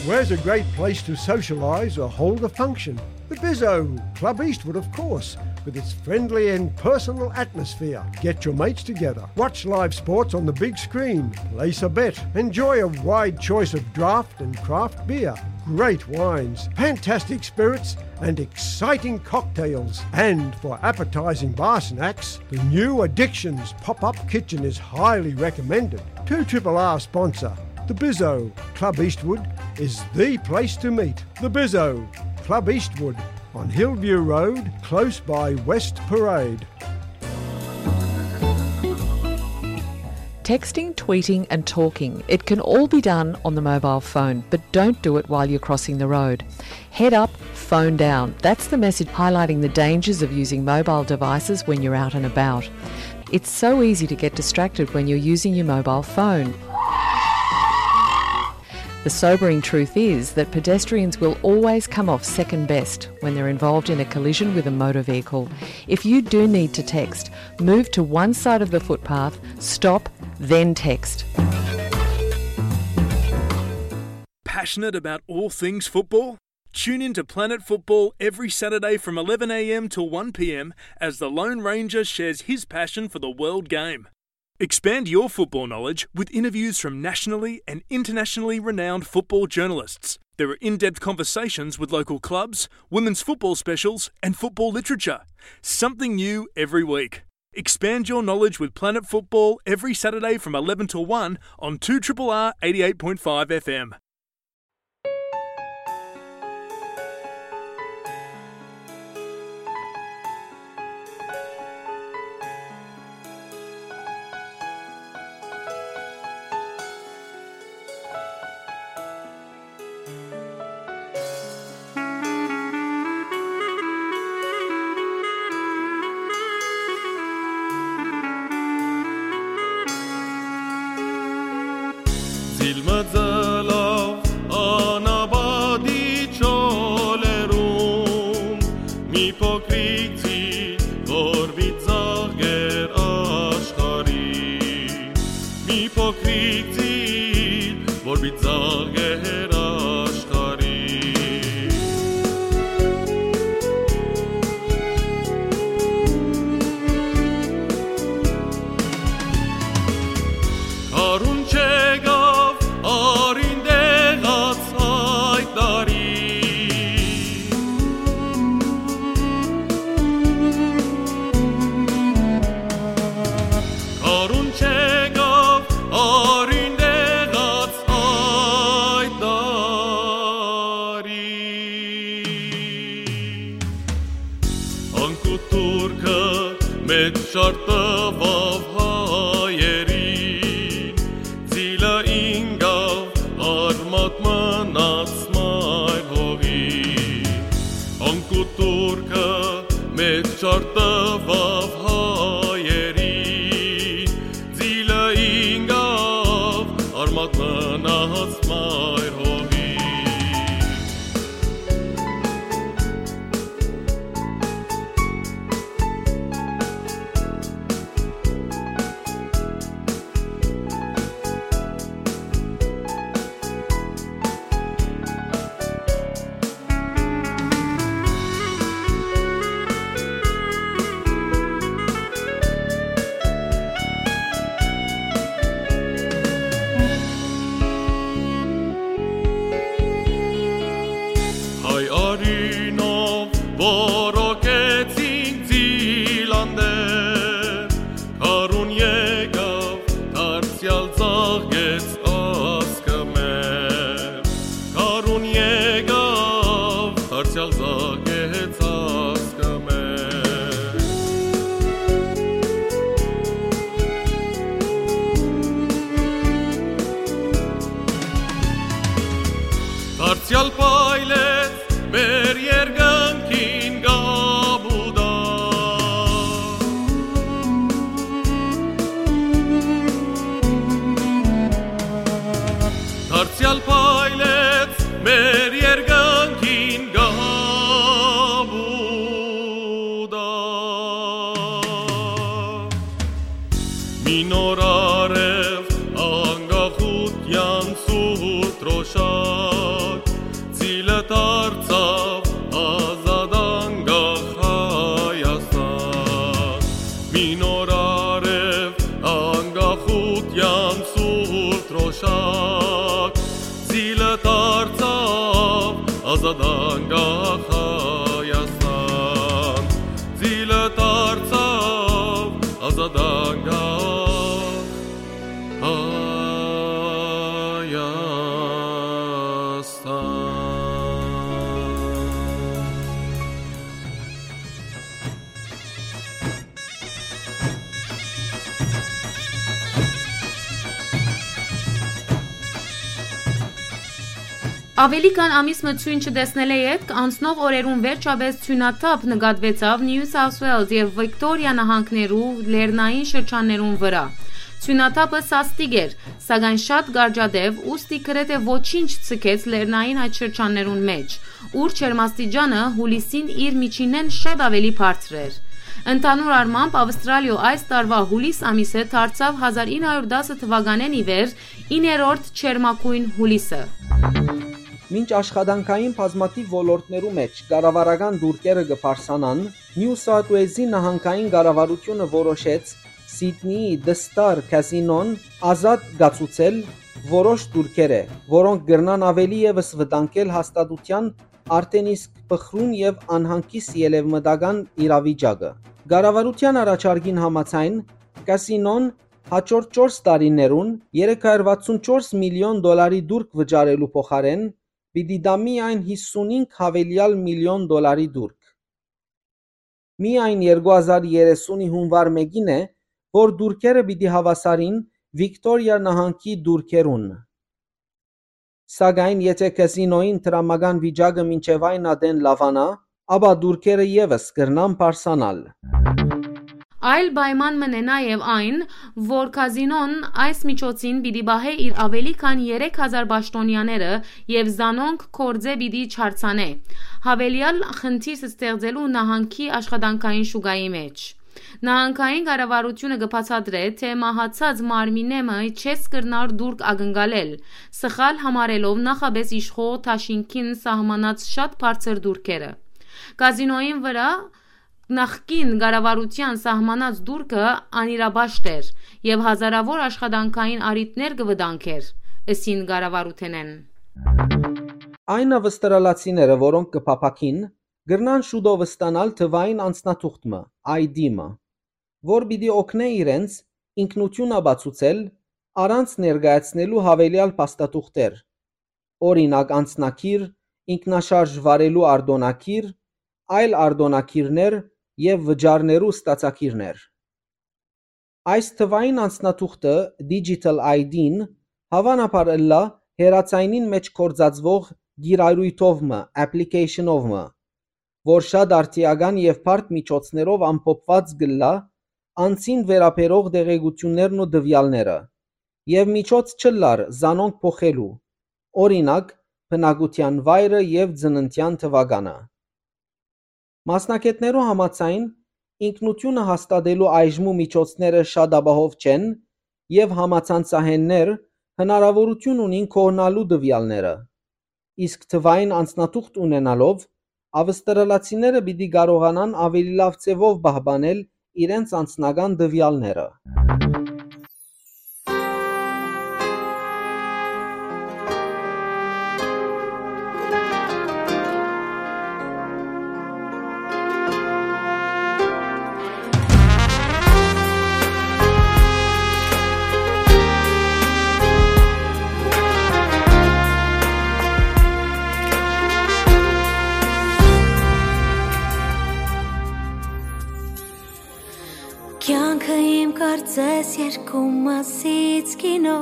Where's a great place to socialise or hold a function? The Bizzo, Club Eastwood, of course, with its friendly and personal atmosphere. Get your mates together, watch live sports on the big screen, place a bet, enjoy a wide choice of draft and craft beer, great wines, fantastic spirits, and exciting cocktails. And for appetising bar snacks, the new Addictions pop-up kitchen is highly recommended. Two Triple R sponsor, the Bizzo, Club Eastwood, is the place to meet. The Bizzo, Club Eastwood, on Hillview Road, close by West Parade. Texting, tweeting, and talking, it can all be done on the mobile phone, but don't do it while you're crossing the road. Head up, phone down. That's the message highlighting the dangers of using mobile devices when you're out and about. It's so easy to get distracted when you're using your mobile phone. The sobering truth is that pedestrians will always come off second best when they're involved in a collision with a motor vehicle. If you do need to text, move to one side of the footpath, stop, then text. Passionate about all things football? Tune in to Planet Football every Saturday from eleven a m till one p m as the Lone Ranger shares his passion for the world game. Expand your football knowledge with interviews from nationally and internationally renowned football journalists. There are in-depth conversations with local clubs, women's football specials, and football literature. Something new every week. Expand your knowledge with Planet Football every Saturday from eleven to one on two triple R eighty-eight point five F M. Զիլմը ձլով անապատի չոլերուն, մի փոքրիկ ձիլ, որ վիծաղեր աշխարհի, մի փոքրիկ ձիլ, որ վիծաղեր աշխարհի։ Արուն չեկաւ արին տեղաց այդ տարի։ Արուն չեկաւ արին տեղաց այդ տարի։ Անկու Թուրքը մեծ շարթ տուաւ հայերին, ձիլը ինկաւ արմատ մնաց մայր հողի։ Անկու Թուրքը մեծ շարթ տուաւ հայերին, ձիլը ինկաւ արմատ մնաց մայր հողի։ Զակեց ազգը մեր։ Դարձեալ փայլեց մեր երկնքին կապուտը։ Դարձեալ փայլեց մեր երկնքին կապուտը։ Մի նոր արեւ անկախութեան սուրբ դրօշակ, ծիլը դարձաւ ազատ անկախ Հայաստան։ Մի նոր արեւ անկախութեան սուրբ դրօշակ, ծիլը դարձաւ ազատ անկախ Հայաստան, ծիլը դարձաւ ազատ անկախ Հայաստան։ Աւելի քան ամիս մը ցոյն չտեսնելէ ետք, անցնող օրերուն վերջապէս ցոյնաթափ նկատուեցաւ Նիու Սաութ Ուէլզ եւ Վիկտորիա նահանգներու լեռնային շրջաններուն վրայ։ Ցոյնաթափը սաստիկ էր, սակայն շատ կարճատեւ, ուստի գրեթէ ոչինչ չձգեց լեռնային այդ շրջաններուն մէջ, ուր ջերմաստիճանը յուլիսին իր միջինէն շատ աւելի բարձր էր։ Ընդհանուր առմամբ, Աւստրալիոյ այս տարուայ յուլիս ամիսը դարձաւ հազար ինը հարիւր տասը թուականէն ի վեր իններորդ ջերմագոյն յուլիսը։ Մինչ աշխատանքային բազմաթիւ ոլորտներու մէջ կառավարական տուրքերը կը բարձրանան, Նիու Սաութ Ուէլզի նահանգային կառավարութիւնը որոշեց Սիդնիի The Star Casino-ն ազատ կացուցել որոշ տուրքերէ, որոնք կրնան աւելի եւս վտանգել հաստատութեան արդէն իսկ փխրուն եւ անհանգիստ ելեւմտական իրավիճակը։ Կառավարութեան առաջարկին համաձայն, կասինոն հաջորդ չորս տարիներուն երեք հարիւր վաթսուն չորս միլիոն դոլարի տուրք վճարելու փոխարէն պիտի տայ միայն հիսունհինգ յաւելեալ միլիոն դոլարի տուրք։ Միայն երկու հազար երեսունի յունուար մէկին է, որ տուրքերը պիտի հաւասարին Վիկտորիա նահանգի տուրքերուն։ Սակայն եթէ կազինոյին դրամական վիճակը մինչեւ այն ատեն լաւանայ, ապա տուրքերը եւս կրնան բարձրանալ։ Այլ պայման մըն է նաեւ այն, որ կազինոն այս միջոցին պիտի պահէ իր աւելի քան երեք հազար պաշտօնեաները եւ զանոնք գործէ պիտի չարձանէ, յաւելեալ խնդիր ստեղծելու նահանգի աշխատանքային շուկայի մէջ։ Նահանգային կառավարութիւնը կը բացատրէ, թէ մահացած մարմինէ մը չես կրնար տուրք ակնկալել, սխալ համարելով նախապէս իշխող դաշինքին սահմանած շատ բարձր տուրքերը։ Կազինոյին վրայ նախկին կառավարութեան սահմանած տուրքը անիրապաշտ էր եւ հազարաւոր աշխատանքային առիթներ կը վտանգէր, ըսին կառավարութենէն։ Այն աւստրալացիները, որոնք կը փափաքին, կրնան շուտով ստանալ թուային անձնաթուղթ մը, I D մը, որ պիտի օգնէ իրենց ինքնութիւն ապացուցել առանց ներկայացնելու յաւելեալ փաստաթուղթեր, օրինակ, անձնագիր, ինքնաշարժ վարելու արտօնագիր, այլ արտօնագիրներ եւ վճարներու ստացագիրներ։ Այս թուային անձնաթուղթը, Digital I D-ն, հաւանաբար ըլլայ հեռաձայնին մէջ գործածուող կիրառոյթով մը, application-ով մը, որ շատ արդիական եւ բարդ միջոցներով ամփոփուած կ'ըլլայ անձին վերաբերող տեղեկութիւններն ու տուեալները, եւ միջոց չ'ըլլար զանոնք փոխելու, օրինակ, բնակութեան վայրը եւ ծննդեան թուականը։ Մասնագէտներու համաձայն, ինքնութիւնը հաստատելու այժմու միջոցները շատ ապահով չեն եւ համացանցահէններ հնարաւորութիւն ունին կորնալու տուեալները, իսկ թուային անձնաթուղթ ունենալով, աւստրալացիները պիտի կարողանան աւելի լաւ ձեւով պահպանել իրենց անձնական տուեալները։ Կարծես երկու մասից կինո,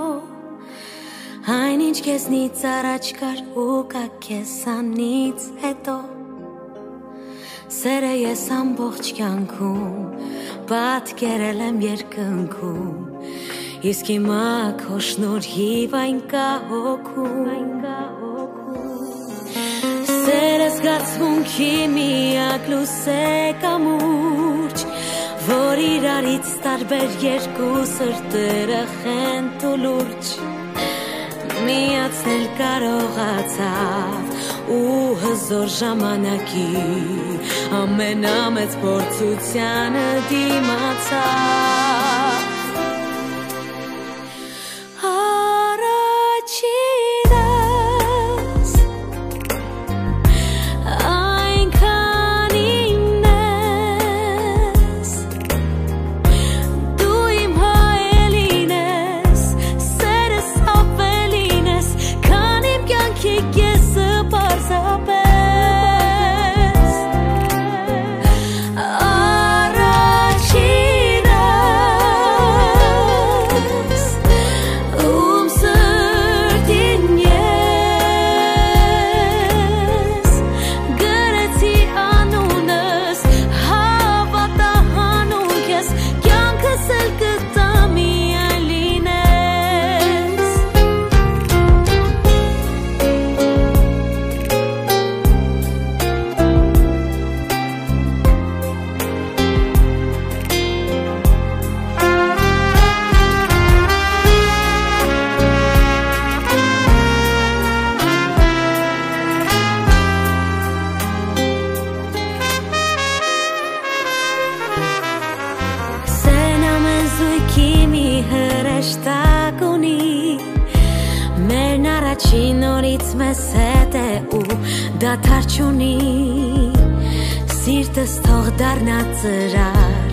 այն ինչ քեզնից առաջ կար ու կայ քեզանից հետո։ Սերը ես ամբողջ կյանքում պատկերել եմ երկնքում, իսկ հիմա քո շնորհիվ այն կայ հոգում։ Սերը զգացմունքի միակ լուսէ կամուրջ, որ իրարից տարբեր երկու սրտերը խենթ ու լուրջ միացնել կարողացաւ ու հզոր ժամանակի ամենամեծ փորձությանը դիմացաւ։ Առաջինս այնքան իմն ես, դու իմ հայելին ես, սերս ավելին ես, քան իմ կյանքի կեսը պարզապես։ Առաջինս, ում սրտին ես գրեցի անունս, հավատա հանուն քեզ, կյանքս էլ կտամ միայն լինես։ Սեն ամեն զոյգի մի հրեշտակ ունի, մերն առաջին օրից մեզ հետ է ու դադար չունի։ Սիրտս թող դառնայ ծրար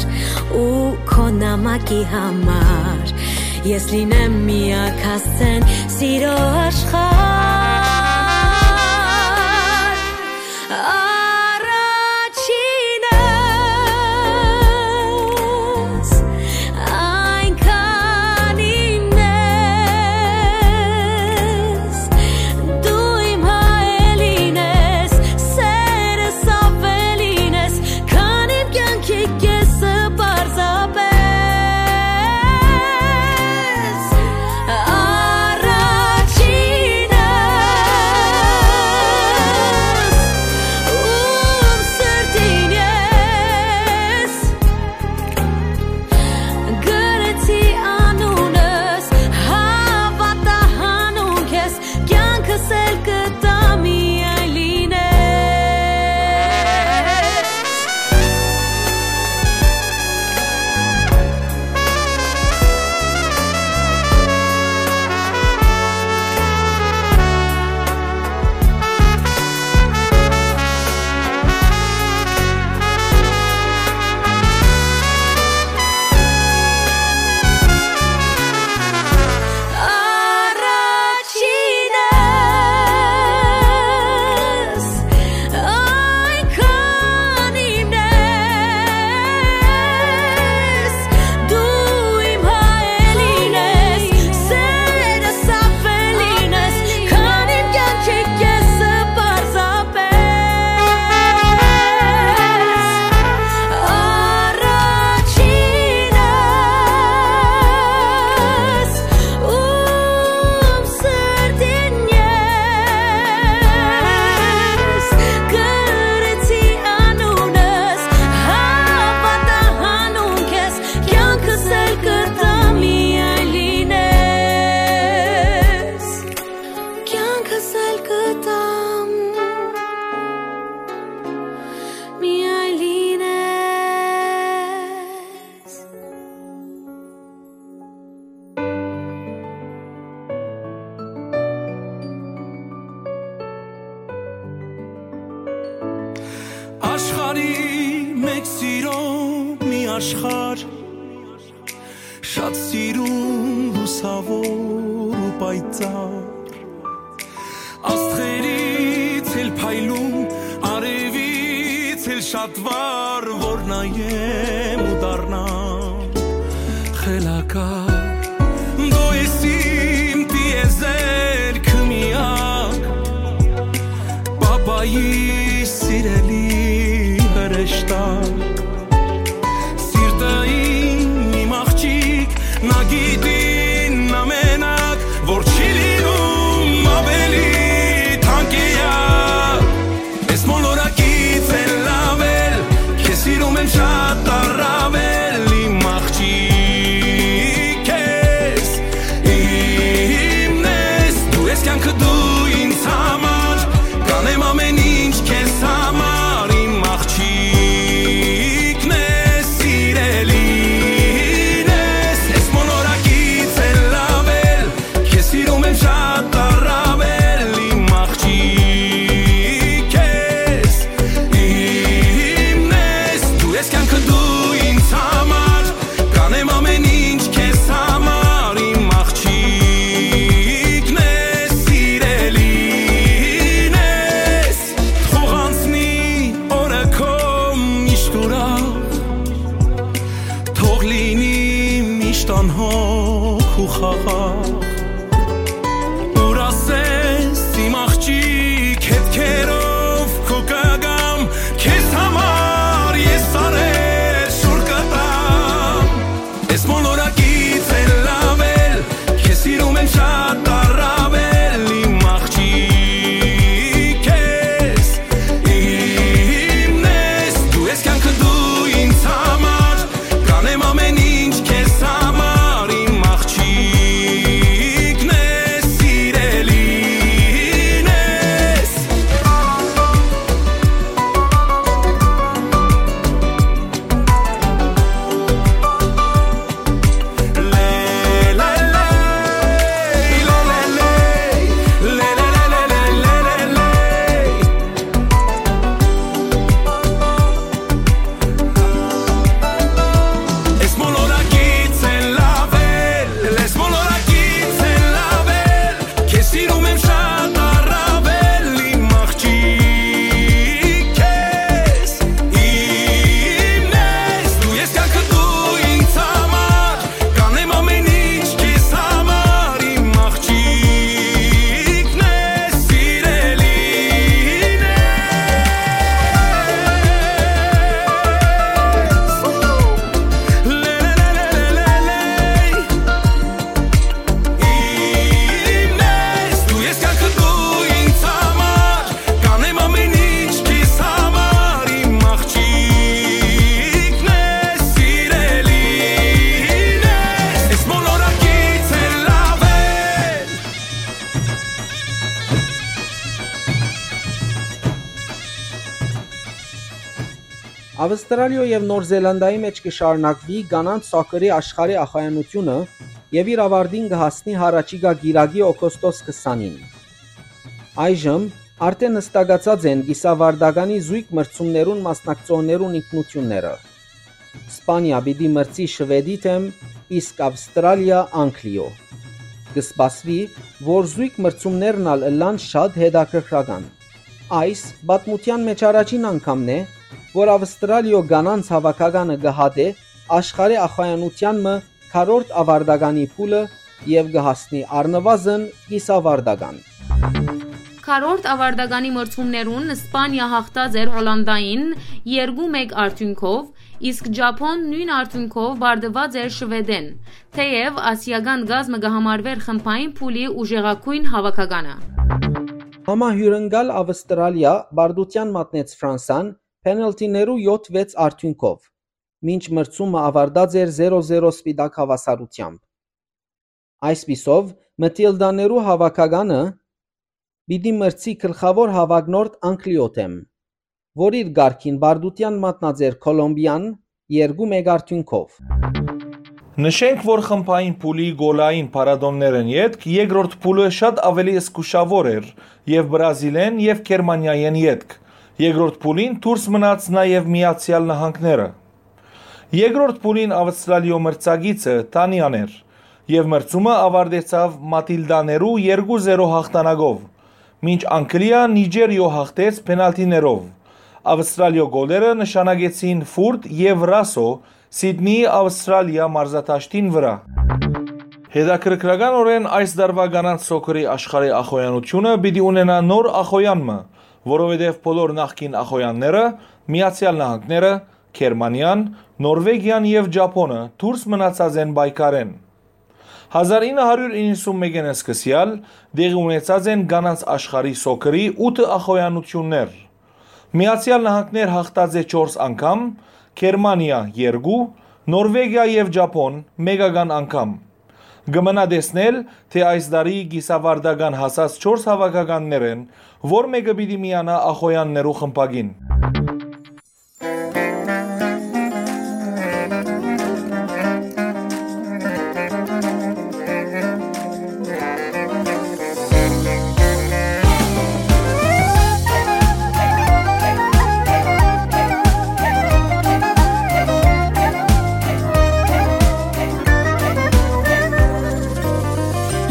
ու քո նամակի համար ես լինեմ միակ հասցեն սիրո աշխարհ։ Առաջինս այնքան իմն ես, դու իմ հայելին ես, սերս ավելին ես, քան իմ կյանքի կեսը պարզապես։ Առաջինս, ում սրտին ես գրեցի անունս, հավատա հանուն քեզ, կյանքս էլ կտամ միայն լինես։ Առաջինս այնքան իմն ես, դու իմ հայելին ես, սերս ավելին ես, քան իմ կյանքի կեսը պարզապես։ Առաջինս, ում սրտին ես գրեցի անունս, հավատա հանուն քեզ, կյանքս էլ կտամ միայն լինես, կյանքս էլ կտամ միայն լինես։ Աշխարհի մեջ սիրո մի աշխարհ, շատ սիրուն, լուսաւոր ու պայծառ։ Աստղերից էլ փայլուն, արևից էլ շատ վառ, որ նայեմ ու դառնամ Դու ես իմ տիեզերքը միակ, պապայի սիրելի հրեշտակ։ Սիրտը իմ, իմ աղջիկ, նա գիտին ամենակ, որ չի լինում ավելի թանկեակ։ Ես մոլորակից էլ ավել, քեզ սիրում եմ շատ առավել, իմ աղջիկ ես, իմն ես, դու ես կյանքը, դու ինձ համար, կանեմ ամեն ինչ քեզ համար, իմ աղջիկն ես, սիրելին ես, ես մոլորակից էլ ավել, քեզ սիրում եմ շատ առավել, իմ աղջիկ ես, իմն ես, դու ես կյանքը, դու ինձ համար, կանեմ ամեն ինչ քեզ համար, իմ աղջիկն ես, սիրելին ես, թող անցնի օրը քո միշտ ուրախ, թող լինի միշտ անհոգ ու խաղաղ։ Ուր ասես իմ աղջիկ, հետքերով քու կգամ, քեզ համար ես սարեր շուռ կտամ։ Ես մոլորակից էլ ավել, քեզ սիրում եմ շատ առավել, իմ աղջիկ ես, իմն ես, դու ես կյանքը, դու ինձ համար, կանեմ ամեն ինչ քեզ համար, իմ աղջիկն ես, սիրելին ես։ Ես մոլորակից էլ ավել, ես մոլորակից էլ ավել, քեզ սիրում եմ շատ առավել, իմ աղջիկ ես, իմն ես, դու ես կյանքը, դու ինձ համար, կանեմ ամեն ինչ քեզ համար, իմ աղջիկն ես, սիրելին ես։ Իմն ես, դու ես կյանքը, դու ինձ համար, կանեմ ամեն ինչ քեզ համար, իմ աղջիկն ես, սիրելին ես, ես մոլորակից էլ ավել։ Ավստրալիոյ եւ Նոր Զելանդիայի մէջ կը շարունակուի կանանց սոքերի աշխարհի ախոյանութիւնը եւ իր աւարտին կը հասնի յառաջիկայ կիրակի, օգոստոս քսանին։ Այժմ արդէն յստակացած են կիսաւարտականի զոյգ մրցումներուն մասնակցողներուն ինքնութիւնները։ Սպանիա պիտի մրցի Շուէդի դէմ, իսկ Ավստրալիա՝ Անգլիոյ։ Կը սպասուի, որ զոյգ մրցումներն ալ ըլլան շատ հետաքրքրական։ Այս պատմութեան մէջ առաջին անգամն է, որ Ավստրալիոյ կանանց հաւաքականը կը հատէ աշխարհի ախոյանութեան մը քառորդ աւարտականի փուլը եւ կը հասնի առնուազն կիսաւարտական։ Քառորդ աւարտականի մրցումներուն Սպանիա յաղթած էր Հոլանտային երկու մէկ արդիւնքով, իսկ Ճապոն նոյն արդիւնքով պարտուած էր Շուէդէն, թէեւ ասիական կազմը կը համարուէր խմբային փուլի ուժեղագոյն հաւաքականը։ Համահիւրընկալ Ավստրալիա պարտութեան մատնեց Ֆրանսան պենալթիներու յոթ վեց արդիւնքով, մինչ մրցումը աւարտած էր զերո զերո սպիտակ հաւասարութեամբ։ Այսպիսով, Մթիլդաներու հաւաքականը պիտի մրցի գլխաւոր հաւագնորդ Անգլիոյ դէմ, որ իր կարգին պարտութեան մատնած էր Քոլոմբիան երկու մէկ արդիւնքով։ Նշենք, որ խմբային փուլի գոլային փառատօներէն ետք երկրորդ փուլը շատ աւելի զգուշաւոր էր եւ Բրազիլէն եւ Գերմանիայէն ետք։ Երկրորդ փուլին դուրս մնաց նաեւ Միացեալ Նահանգները։ Երկրորդ փուլին Ավստրալիոյ մրցակիցը Դանիան էր եւ մրցումը աւարտեցաւ Մաթիլդաներու երկու զերո հաղթանակով, մինչ Անգլիա Նիճերիոյ հաղթեց պենալթիներով։ Ավստրալիոյ գոլերը նշանակեցին Ֆուրտ եւ Ռասո Սիդնիի Աւստրալիա մարզադաշտին վրայ։ Հետաքրքրականօրէն այս տարուայ կանանց սոքերի աշխարհի ախոյանութիւնը պիտի ունենայ նոր ախոյան մը, որովհետեւ բոլոր նախկին ախոյանները՝ Միացեալ Նահանգները, Գերմանիան, Նորվեգիան եւ Ճափոնը դուրս մնացած են պայքարէն։ Հազար ինը հարիւր իննսուն մէկէն սկսեալ տեղի ունեցած են կանանց աշխարհի սոքերի ութը ախոյանութիւններ։ Միացեալ Նահանգներ յաղթած է չորս անգամ, Գերմանիա՝ երկու, Նորվեգիա եւ Ճափոն՝ մէկական անգամ։ Կը մնայ տեսնել, թէ այս տարի կիսաւարտական հասած չորս հաւաքականներէն որ մէկը պիտի միանայ ախոյաններու խմբակին։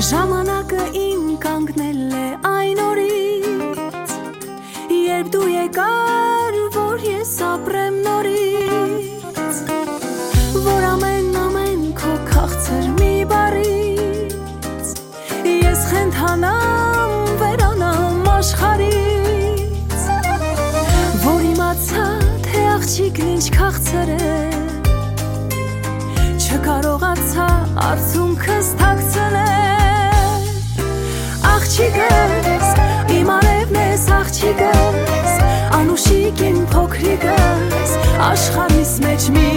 Ժամանակը իմ կանգնել է այն օրից, երբ դու եկար, որ ես ապրեմ նորից, որ ամեն, ամեն քո քաղցր մի բառից ես խենթանամ, վերանամ աշխարհից, որ իմացայ, թէ աղջիկն ինչ քաղցր է, չկարողացայ արցունքս թաքցնել։ Աղջիկս, իմ արեւն ես, աղջիկս, անուշիկ իմ փոքրիկս, աշխարհիս մէջ մի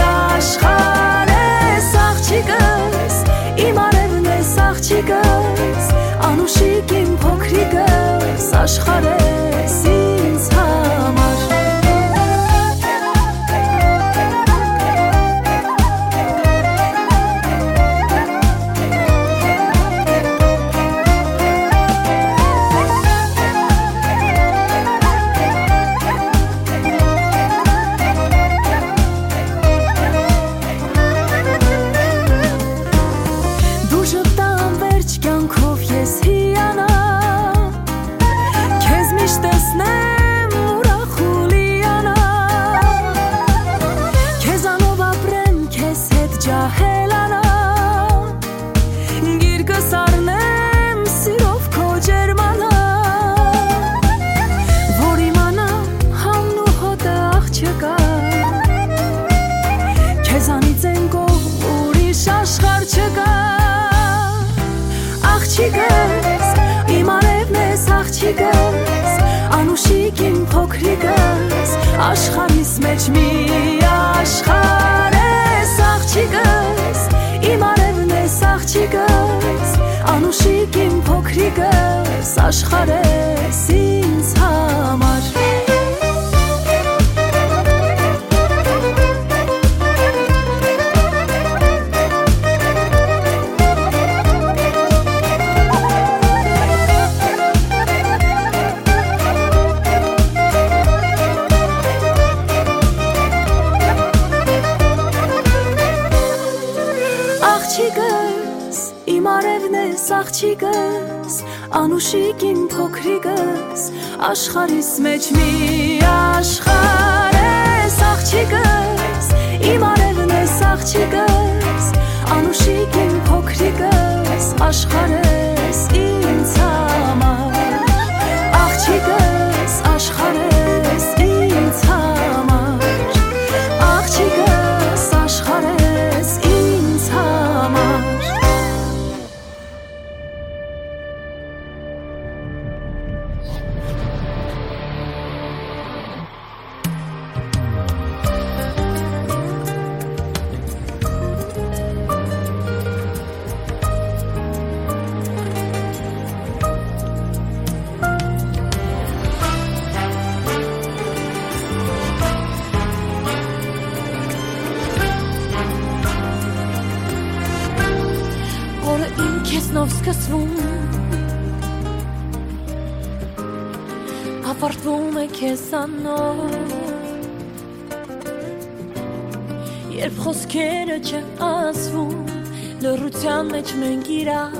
աշխարհ ես, աղջիկս, իմ արեւն ես, աղջիկս, անուշիկ իմ փոքրիկս, աշխարհ ես ինձ համար։ Դու ժպտան վերջ կյանքով ես հիանամ, քեզ միշտ տեսնեմ ուրախ ու լիանամ, քեզանով ապրեմ, քեզ հետ ջահելանամ, գիրկս առնեմ սիրով քո ջերմանամ, որ իմանամ համն ու հոտը աղջկա, քեզանից են կողմ ուրիշ աշխարհ չկա։ Աղջիկս, իմ արևն ես, աղջիկս, անուշիկ իմ փոքրիկս, աշխարհիս մեջ մի աշխարհ ես, աղջիկս, իմ արևն ես, աղջիկս, անուշիկ իմ փոքրիկս, աշխարհ ես ինձ համար։ Աղջիկս, իմ արևն ես, աղջիկս, անուշիկ իմ փոքրիկս, աշխարհիս մեջ մի աշխարհ ես, աղջիկս, իմ արևն ես, աղջիկս, անուշիկ իմ փոքրիկս, աշխարհ ես ինձ համար, աղջիկս, աշխարհ ես ինձ համար, աղջիկս, աշխարհ ես ինձ համար։ Օրը իմ քեզնով սկսվում, ավարտվում է քեզանով։ Երբ խոսքերը չեն ասվում, լռության մեջ մենք իրար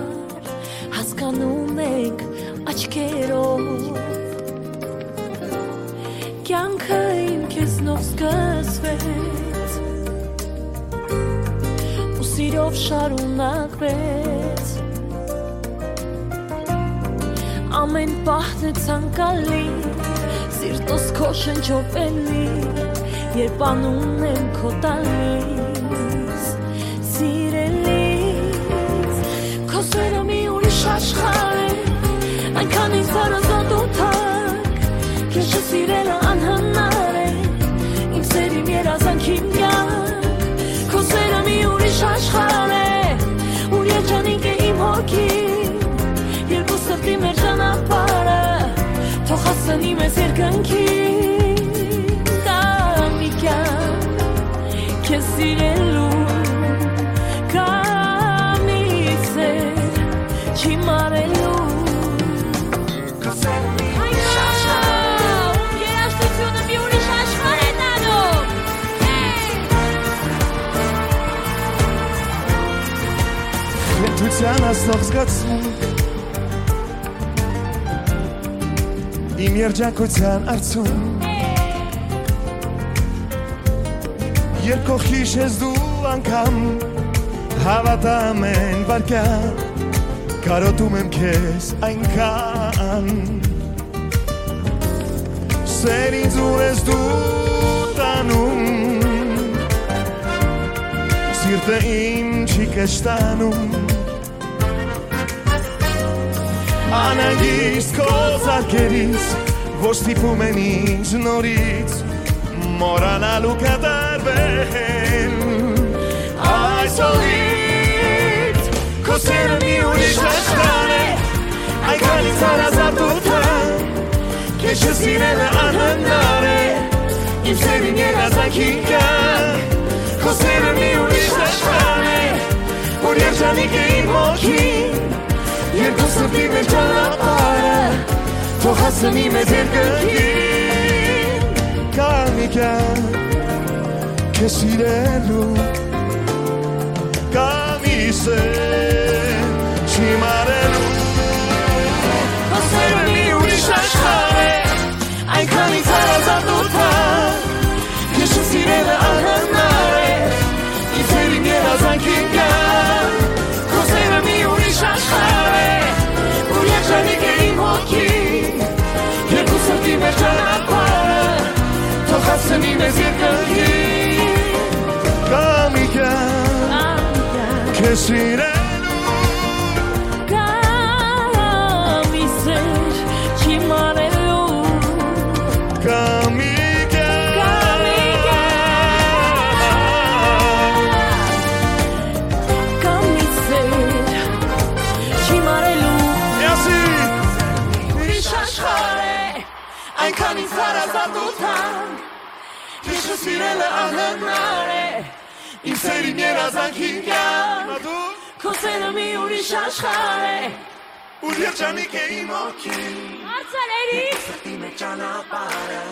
հասկանում ենք աչքերով։ Կյանքը իմ քեզնով սկսվեց, Իրով շարունակվեց։ Ամէն պահ է ցանկալի, սիրտոս քո շնչով էլի, երբ անունն եմ քո տալիս, սիրելիս, քո սերը մի ուրիշ աշխարհ է, այնքան ինձ հարազատ ու թանկ, քեզ չսիրելը անհնար է, իմ սեր, իմ երազանք, իմ կյանք, քո սերը մի ուրիշ աշխարհ է, ուր երջանիկ է իմ հոգին, երկու սրտի մեր ճանապարհը, թող հասցնի մեզ երկնքին, դա մի կյանք, քեզ սիրելու, կամ իմ սեր, չի մարելու։ Հայրա, ում երաժշտությունը մի ուրիշ աշխարհ է տանում։ Կենթության ասնող զգացում, իմ երջանկության արդյունք, երբ քո հիշես դու անգամ, հավատամ են վարկյան, կարոտում եմ քեզ այնքան։ Սեր ինձ, ուր ես դու տանում, սիրտը իմ չի կշտանում։ Անհանգիստ քո զարկերից, որ ստիպում են ինձ նորից մոռանալ ու կատարվել այսօրից։ Քո սերը մի ուրիշ աշխարհ է, այնքան ինձ հարազատ ու թանկ, քեզ չսիրելը անհնար է, իմ սեր, իմ երազանքին կյանք։ Քո սերը մի ուրիշ աշխարհ է, որ երջանիկ է իմ հոգին, երկու սրտի մեր ճանապարհը, թող հասցնի մեզ երկնքին։ Կա մի կյանք քեզ սիրելու, կա մի սեր չի մարելու։ Քո սերը մի ուրիշ աշխարհ է, այնքան ինձ հարազատ ու թանկ, քեզ չսիրելը անհնար է, իմ սեր, իմ երազանքին կյանք։ Քո սերը մի ուրիշ աշխարհ է, որ երջանիկ է իմ հոգին, երկու սրտի մեր ճանապարհը, թող հասցնի մեզ երկնքին։ Կա մի կյանք քեզ սիրելու, կամ իմ սեր չի մարելու։ Կամ իմ կյանք, կամ իմ կյանք, կամ իմ սեր չի մարելու։ Յասի։ Ուրիշ աշխարհ է, այնքան ինձ հարազատ ու թանկ, քեզ չսիրելը անհնար է, իմ սեր, իմ երազանքին կյանք։ Քո սերը մի ուրիշ աշխարհ է, ուր երջանիկ է իմ հոգին։ Արցալերի։ Սրտի մեջ ճանապարհը,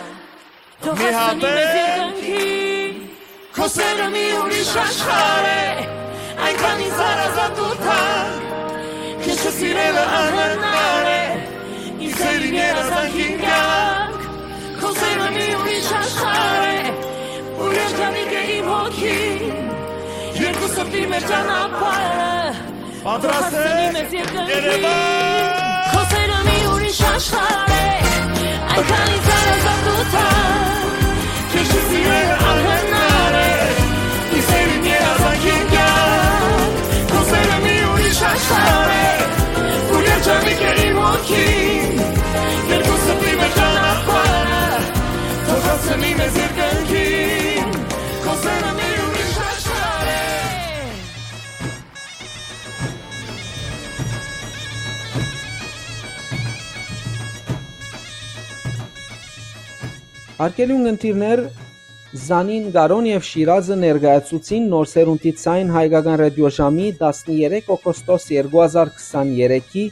թող հասցնի մեզ երկնքին։ Քո սերը մի ուրիշ աշխարհ է, այնքան ինձ հարազատ ու թանկ, քեզ չսիրելը անհնար է, իմ սեր, իմ երազանքին կյանք։ Քո սերը մի ուրիշ աշխարհ է, ուր երջանիկ է իմ հոգին, երկու սրտի մեր ճանապարհը, պատրաստ է։ Երևան։ Քո սերը մի ուրիշ աշխարհ է, այնքան ինձ հարազատ ու թանկ, քեզ չսիրելը անհնար է, իմ սեր, իմ երազանքին կյանք։ Քո սերը մի ուրիշ աշխարհ է, ուր երջանիկ է իմ հոգին, երկու սրտի մեր ճանապարհը, թող հասցնի մեզ երկնքին։ Քո սերը մի ուրիշ աշխարհ է։ Հարգելի ունգընտիրներ, Զանին, Կարոն եւ Շիրազը ներկայացուցին Նոր Սերունդի Ձայն հայկական ռադիոժամի տասներեք օգոստոս երկու հազար քսաներեքի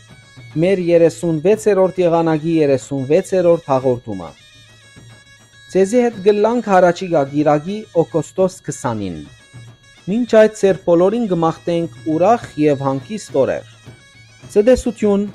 մեր երեսունվեցերորդ եղանակի երեսունվեցերորդ հաղորդումը։ Ձեզի հետ կ'ըլլանք յառաջիկայ կիրակի, օգոստոս քսանին։ Մինչ այդ, ձեր բոլորին կը մաղթենք ուրախ եւ հանգիստ օրեր։ Ցտեսութիւն։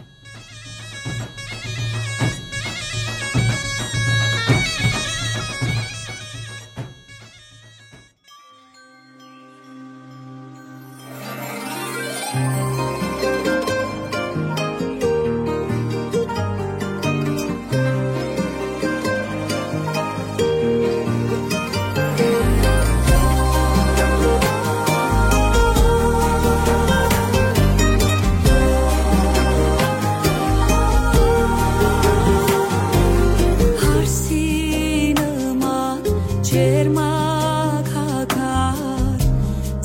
Երմակ հագար,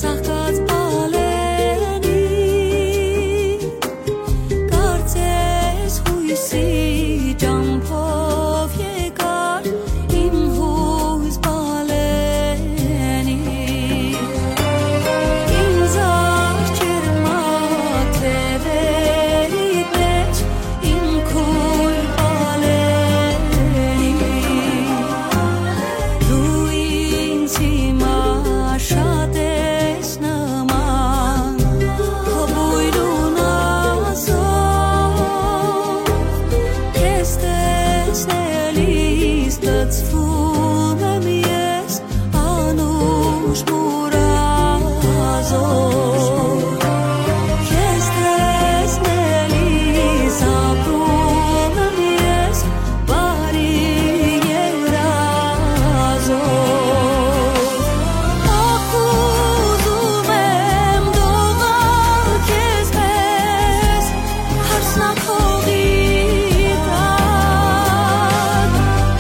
ծաղկած բալենի, կարծես յոյսի ճամբով եկար իմ յոյս բալենի։ Ինձ ա ջերմակ թեւերիդ մէջ իմ քոյր բալենի, դու ինձ հիմա շատ ես նման, քո բոյրուն ազով, քեզ տեսնելիս լցվում եմ ես անուշ մուրազով, քեզ տեսնելիս ապրում եմ ես բարի երազով։ Ախ, ուզում եմ դողալ քեզ պես, հարսնաքողի տակ,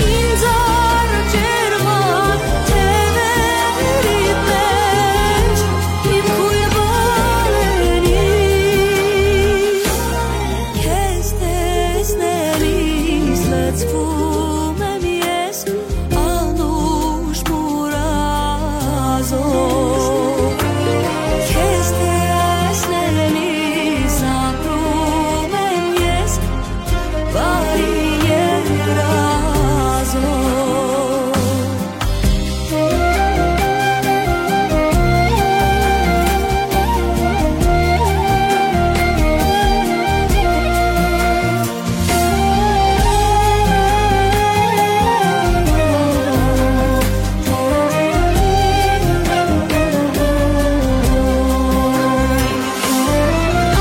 ինձ ա ջերմակ թեւերիդ մէջ իմ քոյր բալենի, քեզ տեսնելիս լցվում եմ ես անուշ մուրազով, քեզ տեսնելիս ապրում եմ ես բարի երազով։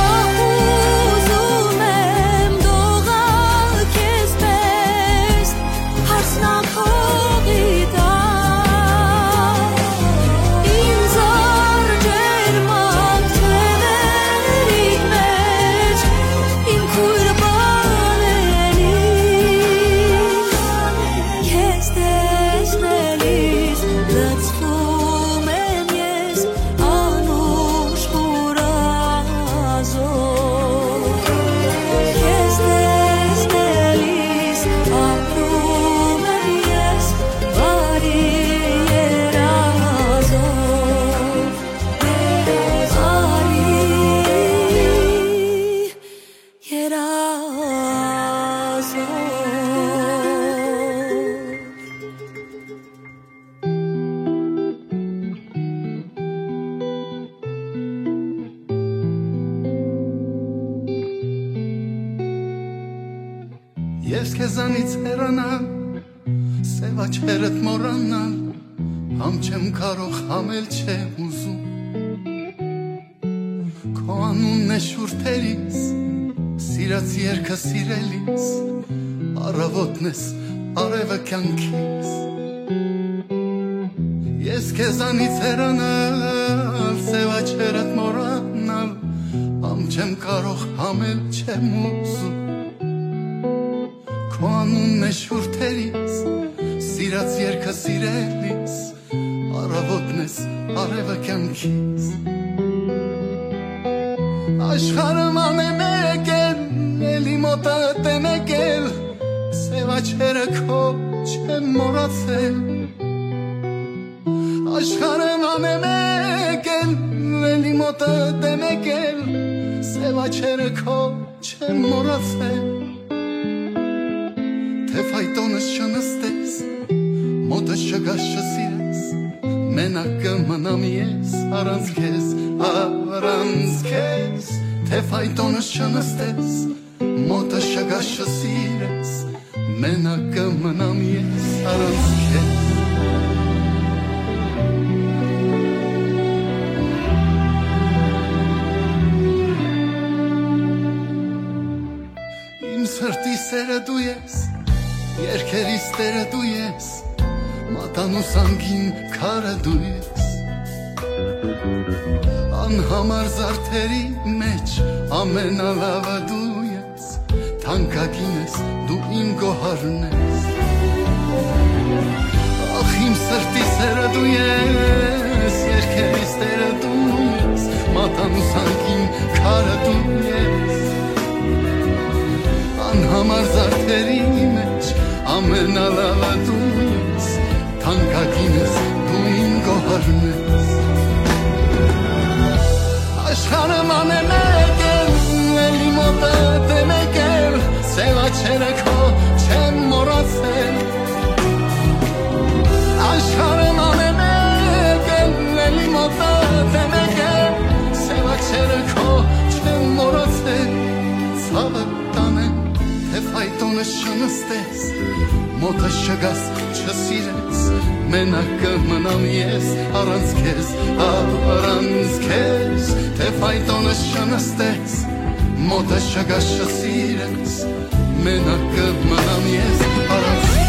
Ախ, ուզում եմ դողալ քեզ պես, հարսնաքողի տակ, ինձ ա ջերմակ թեւերիդ մէջ իմ քոյր բալենի, քեզ տեսնելիս լցվում եմ ես անուշ մուրազով, քեզ տեսնելիս ապրում եմ ես բարի երազով, բարի երազով։ Ես քեզանից հեռանալ, սեւ աչքերդ մոռանալ, համ չեմ կարող, համ էլ չեմ ուզում։ Քո անունն է շուրթերիս, սիրած երկը սիրելիս, առավոտն ես, արեւը կյանքիս։ Ես քեզանից հեռանալ, սեւ աչքերդ մոռանալ, համ չեմ կարող, համ էլ չեմ ուզում։ Քո անունն է շուրթերիս, սիրած երկը սիրելիս, առավոտն ես, արեւը կյանքիս։ Աշխարհը մանե մեկ էլ, էլի մոտդ է մեկ էլ, սեւ աչքերը քո չեմ մոռացել։ Աշխարհը մանե մեկ էլ, էլի մոտդ է մեկ էլ, սեւ աչքերը քո չեմ մոռացել։ Թէ ֆայտոնս չնստես, մոտս չգաս, չսիրես, մենակ կը մնամ ես առանց քեզ, առանց քեզ։ Թէ ֆայտոնս չնստես, մոտս չգաս, չսիրես, մենակ կը մնամ ես առանց քեզ։ Իմ սրտի սերը դու ես, երկերիս տերը դու ես, մատանուս անգին քարը դու ես։ Անհամար զարդերի մեջ ամենալավը դու ես, թանկագին ես, դու իմ գոհարն ես։ Ախ, իմ սրտի Ես երկերիս տերը դու ես, մատանու ցանկին քարը դու ես, անհամար զարդերի մեջ ամենալավը դու ես, թանկագինս դու իմ գոհարն ես։ Աշխարհը ման է մեկ էլ, էլի մոտդ է մեկ էլ, սեւ աչերը քո չեմ մոռացել։ Աշխարհը ման է մեկ էլ, էլի մոտդ է մեկ էլ, սեւ աչերը քո չեմ մոռացել։ Ցաւը տանեմ, թե ֆայտոնը չնստես, մոտը չգաս, չսիրես, մենակ կը մնամ ես առանց քեզ, առանց քեզ, թե ֆայտոնը չնստես, մոտը չգաս, չսիրես, մենակ կը մնամ ես առանց քեզ։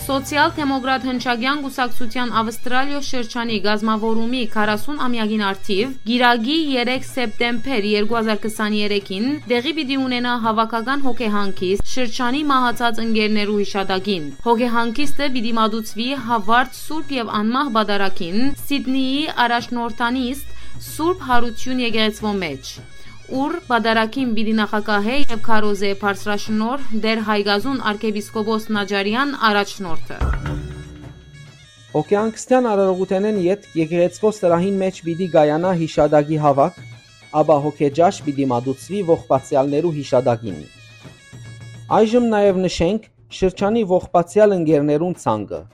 Սոցիալ-դեմոկրատ հնչակեան կուսակցութեան Ավստրալիոյ շրջանի կազմաւորումի քառասուն ամեակին առթիւ, կիրակի, երեք սեպտեմբեր երկու հազար քսաներեքին, տեղի պիտի ունենայ հաւաքական հոգեհանգիստ շրջանի մահացած ընկերներու յիշատակին։ Հոգեհանգիստը պիտի մատուցուի Հաւարտ, Սուրբ եւ Անմահ Պատարագին, Սիդնիի առաջնորդանիստ Սուրբ Յարութիւն եկեղեցւոյ մէջ, ուր պատարագին պիտի նախագահէ եւ քարոզէ բարձրաշնորհ Տէր Հայկազուն արքեպիսկոպոս Նաճարեան առաջնորդը։ Հոգեհանգստեան արարողութենէն ետք եկեղեցւոյ սրահին մէջ պիտի կայանայ յիշատակի հաւաք, ապա հոգեճաշ պիտի մատուցուի ողբացեալներու յիշատակին։ Այժմ նաեւ նշենք շրջանի ողբացեալ ընկերներուն ցանկը։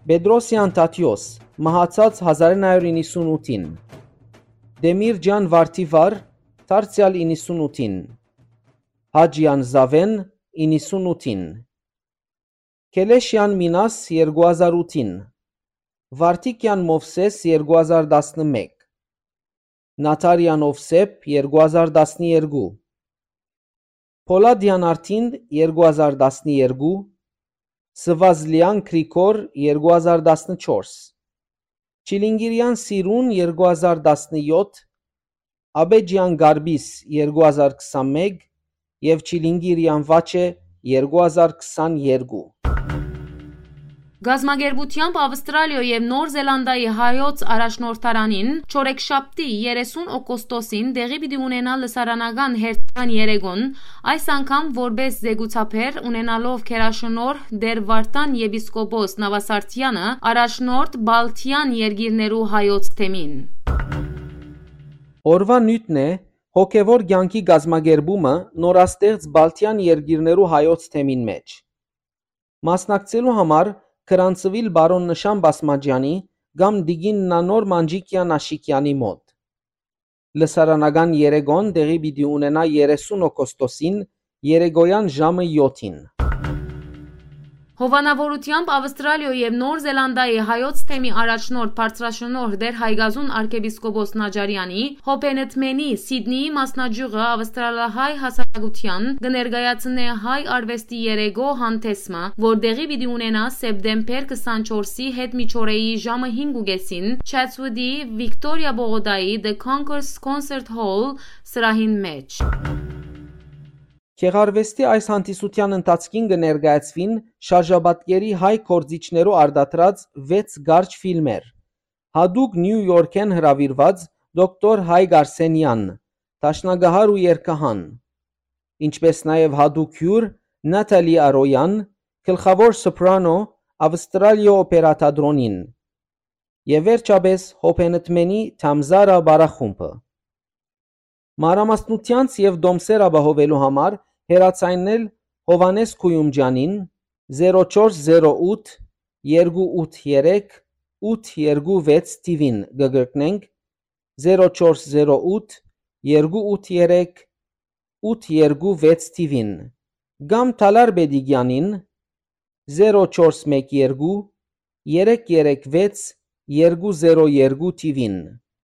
Պետրոսեան Թադիոս, մահացած հազար իննսուն ութին, Տեմիրճեան Վարդիվար, դարձեալ իննսուն ութին, Հաճեան Զաւէն, իննսուն ութին, Քելեշեան Մինաս, երկու հազար ութին, Վարդիկեան Մովսէս, երկու հազար տասնմէկ, Նաթարեան Ովսէփ, երկու հազար տասներկու, Փոլադեան Արթին, երկու հազար տասներկու, Սվազլեան Գրիգոր, երկու հազար տասնչորս, Չիլինգիրեան Սիրուն, երկու հազար տասնեօթ, Աբեջեան Գարբիս, երկու հազար քսանմէկ, եւ Չիլինգիրեան Վաչէ, երկու հազար քսաներկու։ Կազմակերպութեամբ Ավստրալիոյ եւ Նոր Զելանդիայի հայոց առաջնորդարանին չորեքշաբթի, երեսուն օգոստոսին, տեղի պիտի ունենայ լսարանական հերթական երեկոն, այս անգամ որպէս զեկուցաբեր, ունենալով գերաշնորհ Տէր Վարդան եպիսկոպոս Նավասարդեանը, առաջնորդ Բալթեան երկիրներու հայոց թեմին։ Օրուան նիւթն է հոգեւոր կեանքի կազմակերպումը նորաստեղծ Բալթեան երկիրներու հայոց թեմին մէջ։ Մասնակցելու համար գրանցուիլ պարոն Նշան Բասմաճեանի կամ տիկին Նանոր Մանջիկեան Աշիկեանի մօտ։ Լսարանական երեկոն տեղի պիտի ունենայ երեսուն օգոստոսին, երեկոյան ժամը եօթին։ Հովանաւորութեամբ Ավստրալիոյ եւ Նոր Զելանդիայի հայոց թեմի առաջնորդ բարձրաշնորհ Տէր Հայկազուն արքեպիսկոպոս Նաճարեանի, Հոբենտմենի, Սիդնիի մասնաճիւղը ավստրալահայ հասարակութեան կը ներկայացնէ հայ արուեստի երեկոյ հանդէսը, որ տեղի պիտի ունենայ սեպտեմբեր քսանչորսի հետ միջօրեի ժամը հինգ ու կեսին, Չատսուտի Վիկտորիա պողոտայի The Concourse Concert Hall սրահին մէջ։ Գեղարուեստի այս հանդիսութեան ընթացքին կը ներկայացուին շարժապատկերի հայ գործիչներու արտադրած վեց կարճ ֆիլմեր, յատուկ Նիու Յորքէն հրաւիրուած դոկտոր Հայկ Արսենեան, դաշնակահար ու երգահան, ինչպէս նաեւ յատուկ հիւր Նաթալի Արոյան, գլխաւոր սոպրանո Ավստրալիոյ օպերա թատրոնին, եւ վերջապէս Հոբենտմենի Թամզարա պարախումբը։ Մանրամասնութեանց եւ տոմսեր ապահովելու համար հեռաձայնել Հովհաննէս Քոյումճեանին, զերո չորս զերո ութ, երկու ութ երեք, ութ երկու վեց թիվին, կը կրկնենք, զերո չորս զերո ութ, երկու ութ երեք, ութ երկու վեց թիվին, կամ Թալար Պետիկեանին, զերո չորս մեկ երկու, երեք երեք վեց, երկու զերո երկու թիվին։